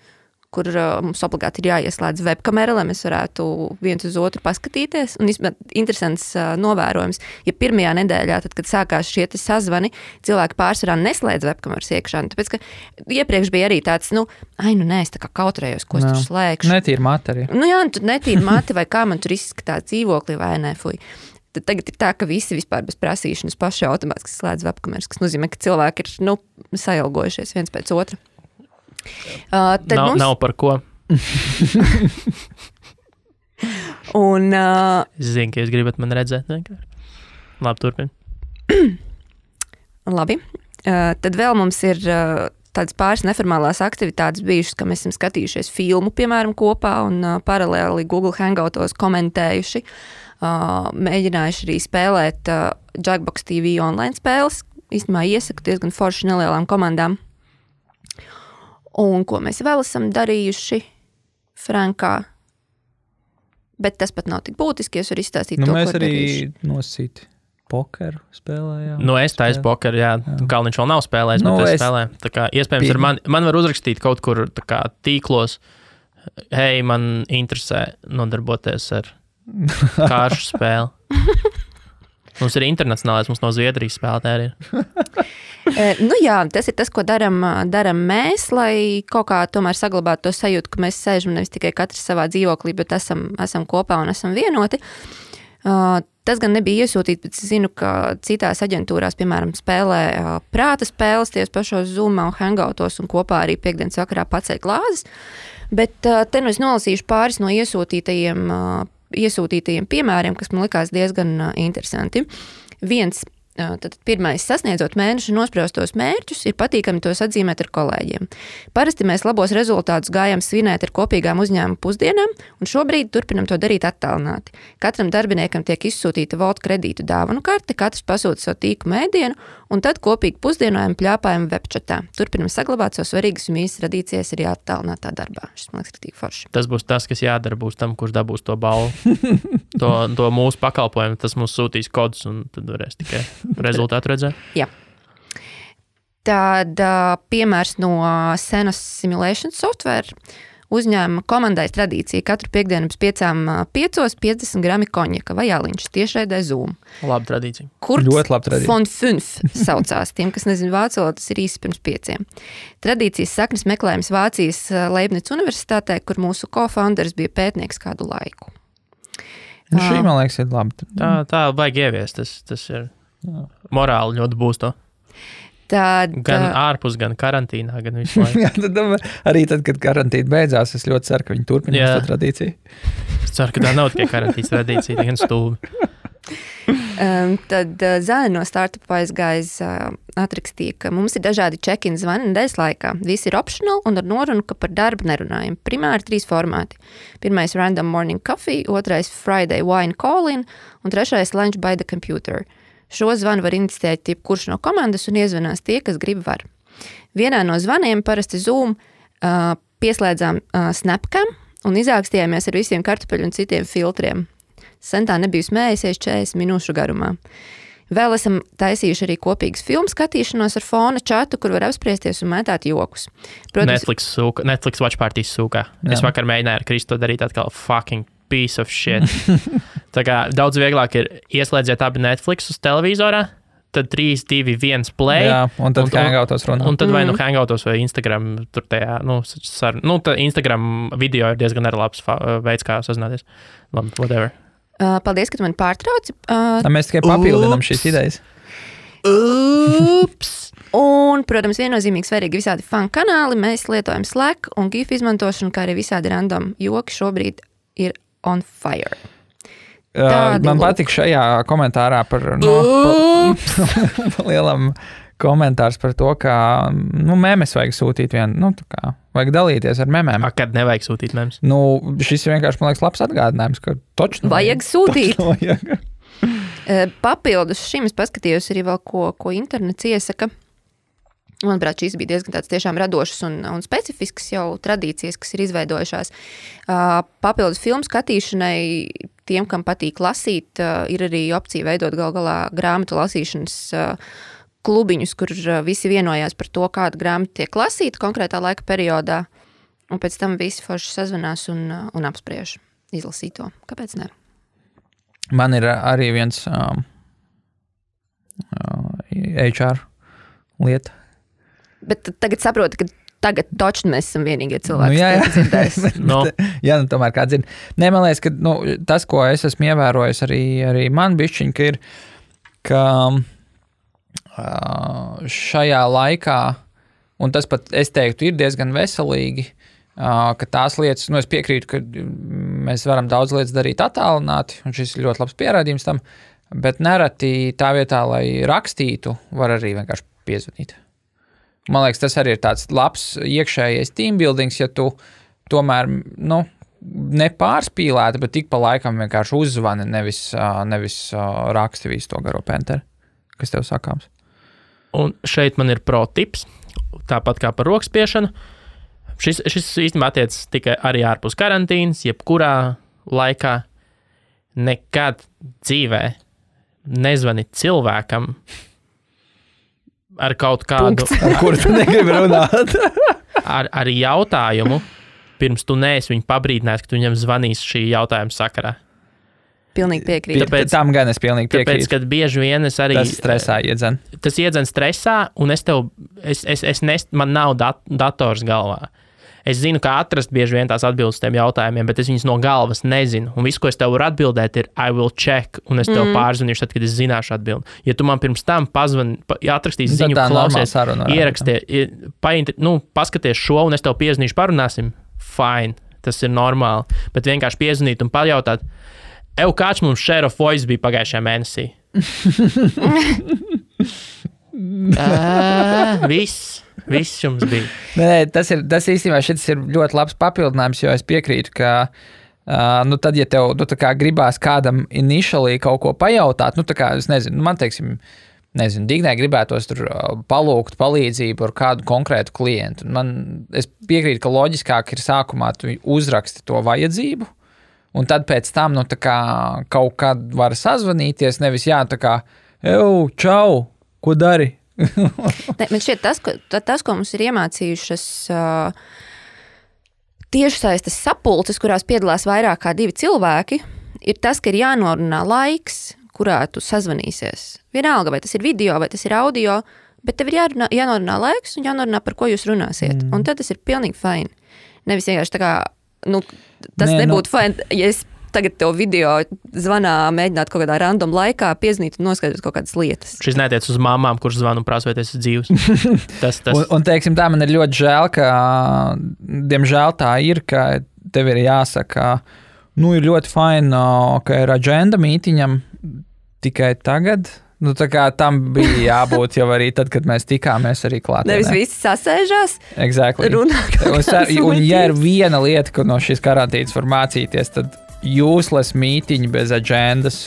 kur mums obligāti ir jāieslēdz webkamera, lai mēs varētu viens uz otru paskatīties. Un interesants novērojums, ja pirmajā nedēļā, tad, kad sākās šie sazvani, cilvēki pārsvarā neslēdz webkameras iekšā. Tāpēc, ka iepriekš bija arī tāds, nē, es tā kā kautrējos, ko es tur slēgšu. Netīra mati arī. Jā, tur netīra mati, vai kā man tur izskatās dzīvokli, vai nē, fuj. Tad tagad ir tā, ka visi vispār bez prasīšanas paši automātiski slēdz webkameras, kas nozīmē, ka cilvēki ir, sailgojušies viens pēc otra. Nav par ko. Un, es zinu, ka jūs gribat mani redzēt. Labi, turpin. Labi. Tad vēl mums ir tādas pāris neformālās aktivitātes bijušas, ka mēs esam skatījušies filmu, piemēram, kopā un paralēli Google Hangoutos komentējuši. Mēģinājuši arī spēlēt Jackbox TV online spēles. Īstenībā iesaku diezgan forši nelielām komandām. Un ko mēs vēl esam darījuši Frankā. Bet tas pat nav tik būtiski, es varu izstāstīt to, mēs ko arī darījuši. nosīt pokeru spēlējām. Es taisu pokeru, jā. Kalniņš vēl nav spēlējis, bet es spēlēju. Tā kā iespējams ir man var uzrakstīt kaut kur tā kā tīklos, hei, man interesē nodarboties ar kāršu spēli. Mums ir internacionālais, mums no Zviedrijas spēlētāji ir. Jā, tas ir tas, ko daram mēs, lai kaut kā tomēr saglabātu to sajūtu, ka mēs sēžam nevis tikai katrs savā dzīvoklī, bet esam kopā un esam vienoti. Tas gan nebija iesūtīts, bet es zinu, ka citās aģentūrās, piemēram, spēlē prāta spēles tieši pašos Zoomā un Hangoutos un kopā arī piekdienas vakarā pacēja glāzes. Bet te es nolasīšu pāris no iesūtītajiem piemēriem, kas man likās diezgan interesanti. Tad pirmais, sasniedzot mēneša nospraustos mērķus, ir patīkami tos atzīmēt ar kolēģiem. Parasti mēs labos rezultātus gājam svinēt ar kopīgām uzņēmuma pusdienām, un šobrīd turpinam to darīt attālināti. Katram darbiniekam tiek izsūtīta Volt kredītu dāvanu karte, katrs pasūta savu tīku mēdienu, un tad kopīgi pusdienojam pļāpājam webčatā. Turpinam saglabāt savu svarīgas un īstas tradīcijas arī attālinātā darbā. Šis man liekas, tik forši. Tas būs tas, kas jādara būs tam, kurš dabūs to balvu. to mūsu pakalpojumu, tas mums sūtīs kodus, un tad varēs tikai rezultātu redzēt. Jā. Tad piemērs no Senas Simulation Software. Uzņēmuma komandais tradīcija katru piekdienu pēc 5:05 50 grami konjaka vai aliņš tiešraidē Zoom. Laba tradīcija. Ļoti laba tradīcija. Von 5 saucās. Tiem, kas nezin vācu valodu, tas ir īsi pirms 5. Tradīcijas saknes meklējums Vācijas Leibniz universitātē, kur mūsu co-founders bija pētnieks kādu laiku. Šī, man liekas, ir labi. Tā vajag ieviest. Tas ir morāli ļoti būs to. Gan ārpus, gan karantīnā, gan visu laiku. Jā, arī tad, kad karantīna beidzās, es ļoti ceru, ka viņi turpinās to tradīciju. Es ceru, ka tā nav tikai karantīnas tradīcija, tā gan stulbi. Tad Zāne no Startup aizgājis atrakstīja, ka mums ir dažādi check-in zvani nedēļas laikā. Visi ir optional un ar norunu, ka par darbu nerunājam. Primāri 3 formāti. Pirmais random morning coffee, otrais Friday wine call-in un trešais lunch by the computer. Šo zvanu var iniciēt jebkurš no komandas un iezvanās tie, kas grib var. Vienā no zvaniem parasti Zoom pieslēdzām Snapcam un izākstījāmies ar visiem kartupeļu un citiem filtriem. Sentā nebija smējusies 40 minūšu garumā. Vēl esam taisījuši arī kopīgas filmu skatīšanos ar fona čatu, kur var apspriesties un mētāt jokus. Protams, Netflix Watch Parties sūkā. Es vakar mēģināju ar Kristu darīt atkal fucking piece of shit. Tā kā daudz vieglāk ir ieslēdziet abi Netflix uz televizorā, tad 3, 2, 1 play. Jā, un tad Hangoutos runā. Un tad vai Hangoutos vai Instagram tur tajā, Instagram video ir diezgan arī labs veids, kā sazināties. Labi, whatever. Paldies, ka tu mani pārtrauci. Mēs tikai papildinām šīs idejas. Ups! Un, protams, viennozīmīgi svarīgi visādi fan kanāli. Mēs lietojam Slack un GIF izmantošanu, kā arī visādi random joki šobrīd ir on fire. Man patīk šajā komentārā par lielam komentārs par to, ka memes vajag sūtīt vajag dalīties ar memēm. Kad nevajag sūtīt memes? Šis vienkārši, man liekas, labs atgādinājums, ka točnu vajag sūtīt. Vajag. Papildus šim es paskatījos arī vēl, ko internets iesaka. Manuprāt, šīs bija diezgan tāds tiešām radošas un specifiskas jau tradīcijas, kas ir izveidojušās. Papildus filmu skatīšanai, tiem, kam patīk lasīt, ir arī opcija veidot galā grāmatu lasīšanas klubiņus, kur visi vienojās par to, kāda grāmata tiek lasīta konkrētā laika periodā, un pēc tam visi forši sazvanās un apspriež izlasīto. Kāpēc ne? Man ir arī viens HR lieta. Bet tagad saprotu, ka tagad točni mēs esam vienīgie cilvēki, kas dzirdēs. Jā, tomēr kā dzird. Nē, man liekas, ka tas, ko es esmu ievērojis arī man bišķiņ, ka ir, ka šajā laikā, un tas pat, es teiktu, ir diezgan veselīgi, ka tās lietas, es piekrītu, ka mēs varam daudz lietas darīt attālināti, un šis ir ļoti labs pierādījums tam, bet nereti tā vietā, lai rakstītu, var arī vienkārši piezvanīt. Man liekas, tas arī ir tāds labs iekšējais teambuildings, ja tu tomēr, nepārspīlēti, bet tik pa laikam vienkārši uzzvani, nevis raksti visu to garo penteri, kas tev sakāms. Un šeit man ir pro tips, tāpat kā par rokspiešanu. Šis īstenībā attiecas tikai arī ārpus karantīnas, jebkurā laikā. Nekad dzīvē nezvani cilvēkam ar kaut kādu... Ar kuru tu negribi runāt. ar jautājumu, pirms tu neesi viņu pabrīdinājis, ka tu viņam zvanīs šī jautājuma sakarā. Pilnīgi piekrītu. Tam gan es pilnīgi piekrītu. Tāpēc, kad bieži vien es arī... Tas stresā iedzen. Tas iedzen stresā, un man nav dators galvā. Es zinu, kā atrast bieži vien tās atbildes tiem jautājumiem, bet es viņas no galvas nezinu. Un viss, ko es tev varu atbildēt, ir I will check, un es tev pārzvanīšu tad, kad es zināšu atbildi. Ja tu man pirms tam atrakstīsi ziņu, klausies, ieraksties, paskaties šo, un es tev piezvanīšu, parunāsim, fine, tas ir normāli. Bet vienkārši piezvanīt un pajautāt, kāds mums share of voice bija pagājušajā mēnesī? Viss jums bija. Nē, tas īstenībā šis ir ļoti labs papildinājums, jo es piekrītu, ka tad, ja tev gribās kādam initially kaut ko pajautāt, es nezinu, man teiksim, Dignai gribētos tur palūgt palīdzību ar kādu konkrētu klientu. Es piekrītu, ka loģiskāk ir sākumā tu uzraksti to vajadzību, un tad pēc tam, kaut kad var sazvanīties, nevis čau, ko dari? Man šķiet, tas, ko mums ir iemācījušas tiešsaistes sapulces, kurās piedalās vairāk kā 2 cilvēki, ir tas, ka ir jānorunā laiks, kurā tu sazvanīsies. Vienalga, vai tas ir video, vai tas ir audio, bet tev ir jānorunā laiks un jānorunā, par ko jūs runāsiet. Un tad tas ir pilnīgi fine. Nevis vienkārši tas nebūtu fine, ja es tagad tev video zvanā mēģināt kaut kādā random laikā piezinīt un noskaidrot kaut kādas lietas. Šis netiec uz mamām, kuras zvanu un prasa, vai tas ir dzīvs. Tas. Un teiksim tā, man ir ļoti žēl, ka, diemžēl tā ir, ka tev ir jāsaka, ir ļoti fine, ka ir agenda mītiņam tikai tagad. Tam bija jābūt jau arī tad, kad mēs tikāmies arī klātienē. Nevis visi sasēžās, exactly. Runā. Un ja ir viena lieta, ko no šīs karantīnas var mācīties, tad useless mītiņi bez agendas.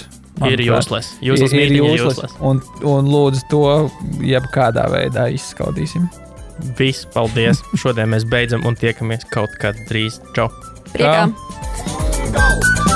Ir useless. Useless mītiņi ir useless. Un lūdzu to jebkādā veidā izskaudīsim. Viss, paldies. Šodien mēs beidzam un tiekamies kaut kad drīz. Čau. Priekā. Čau.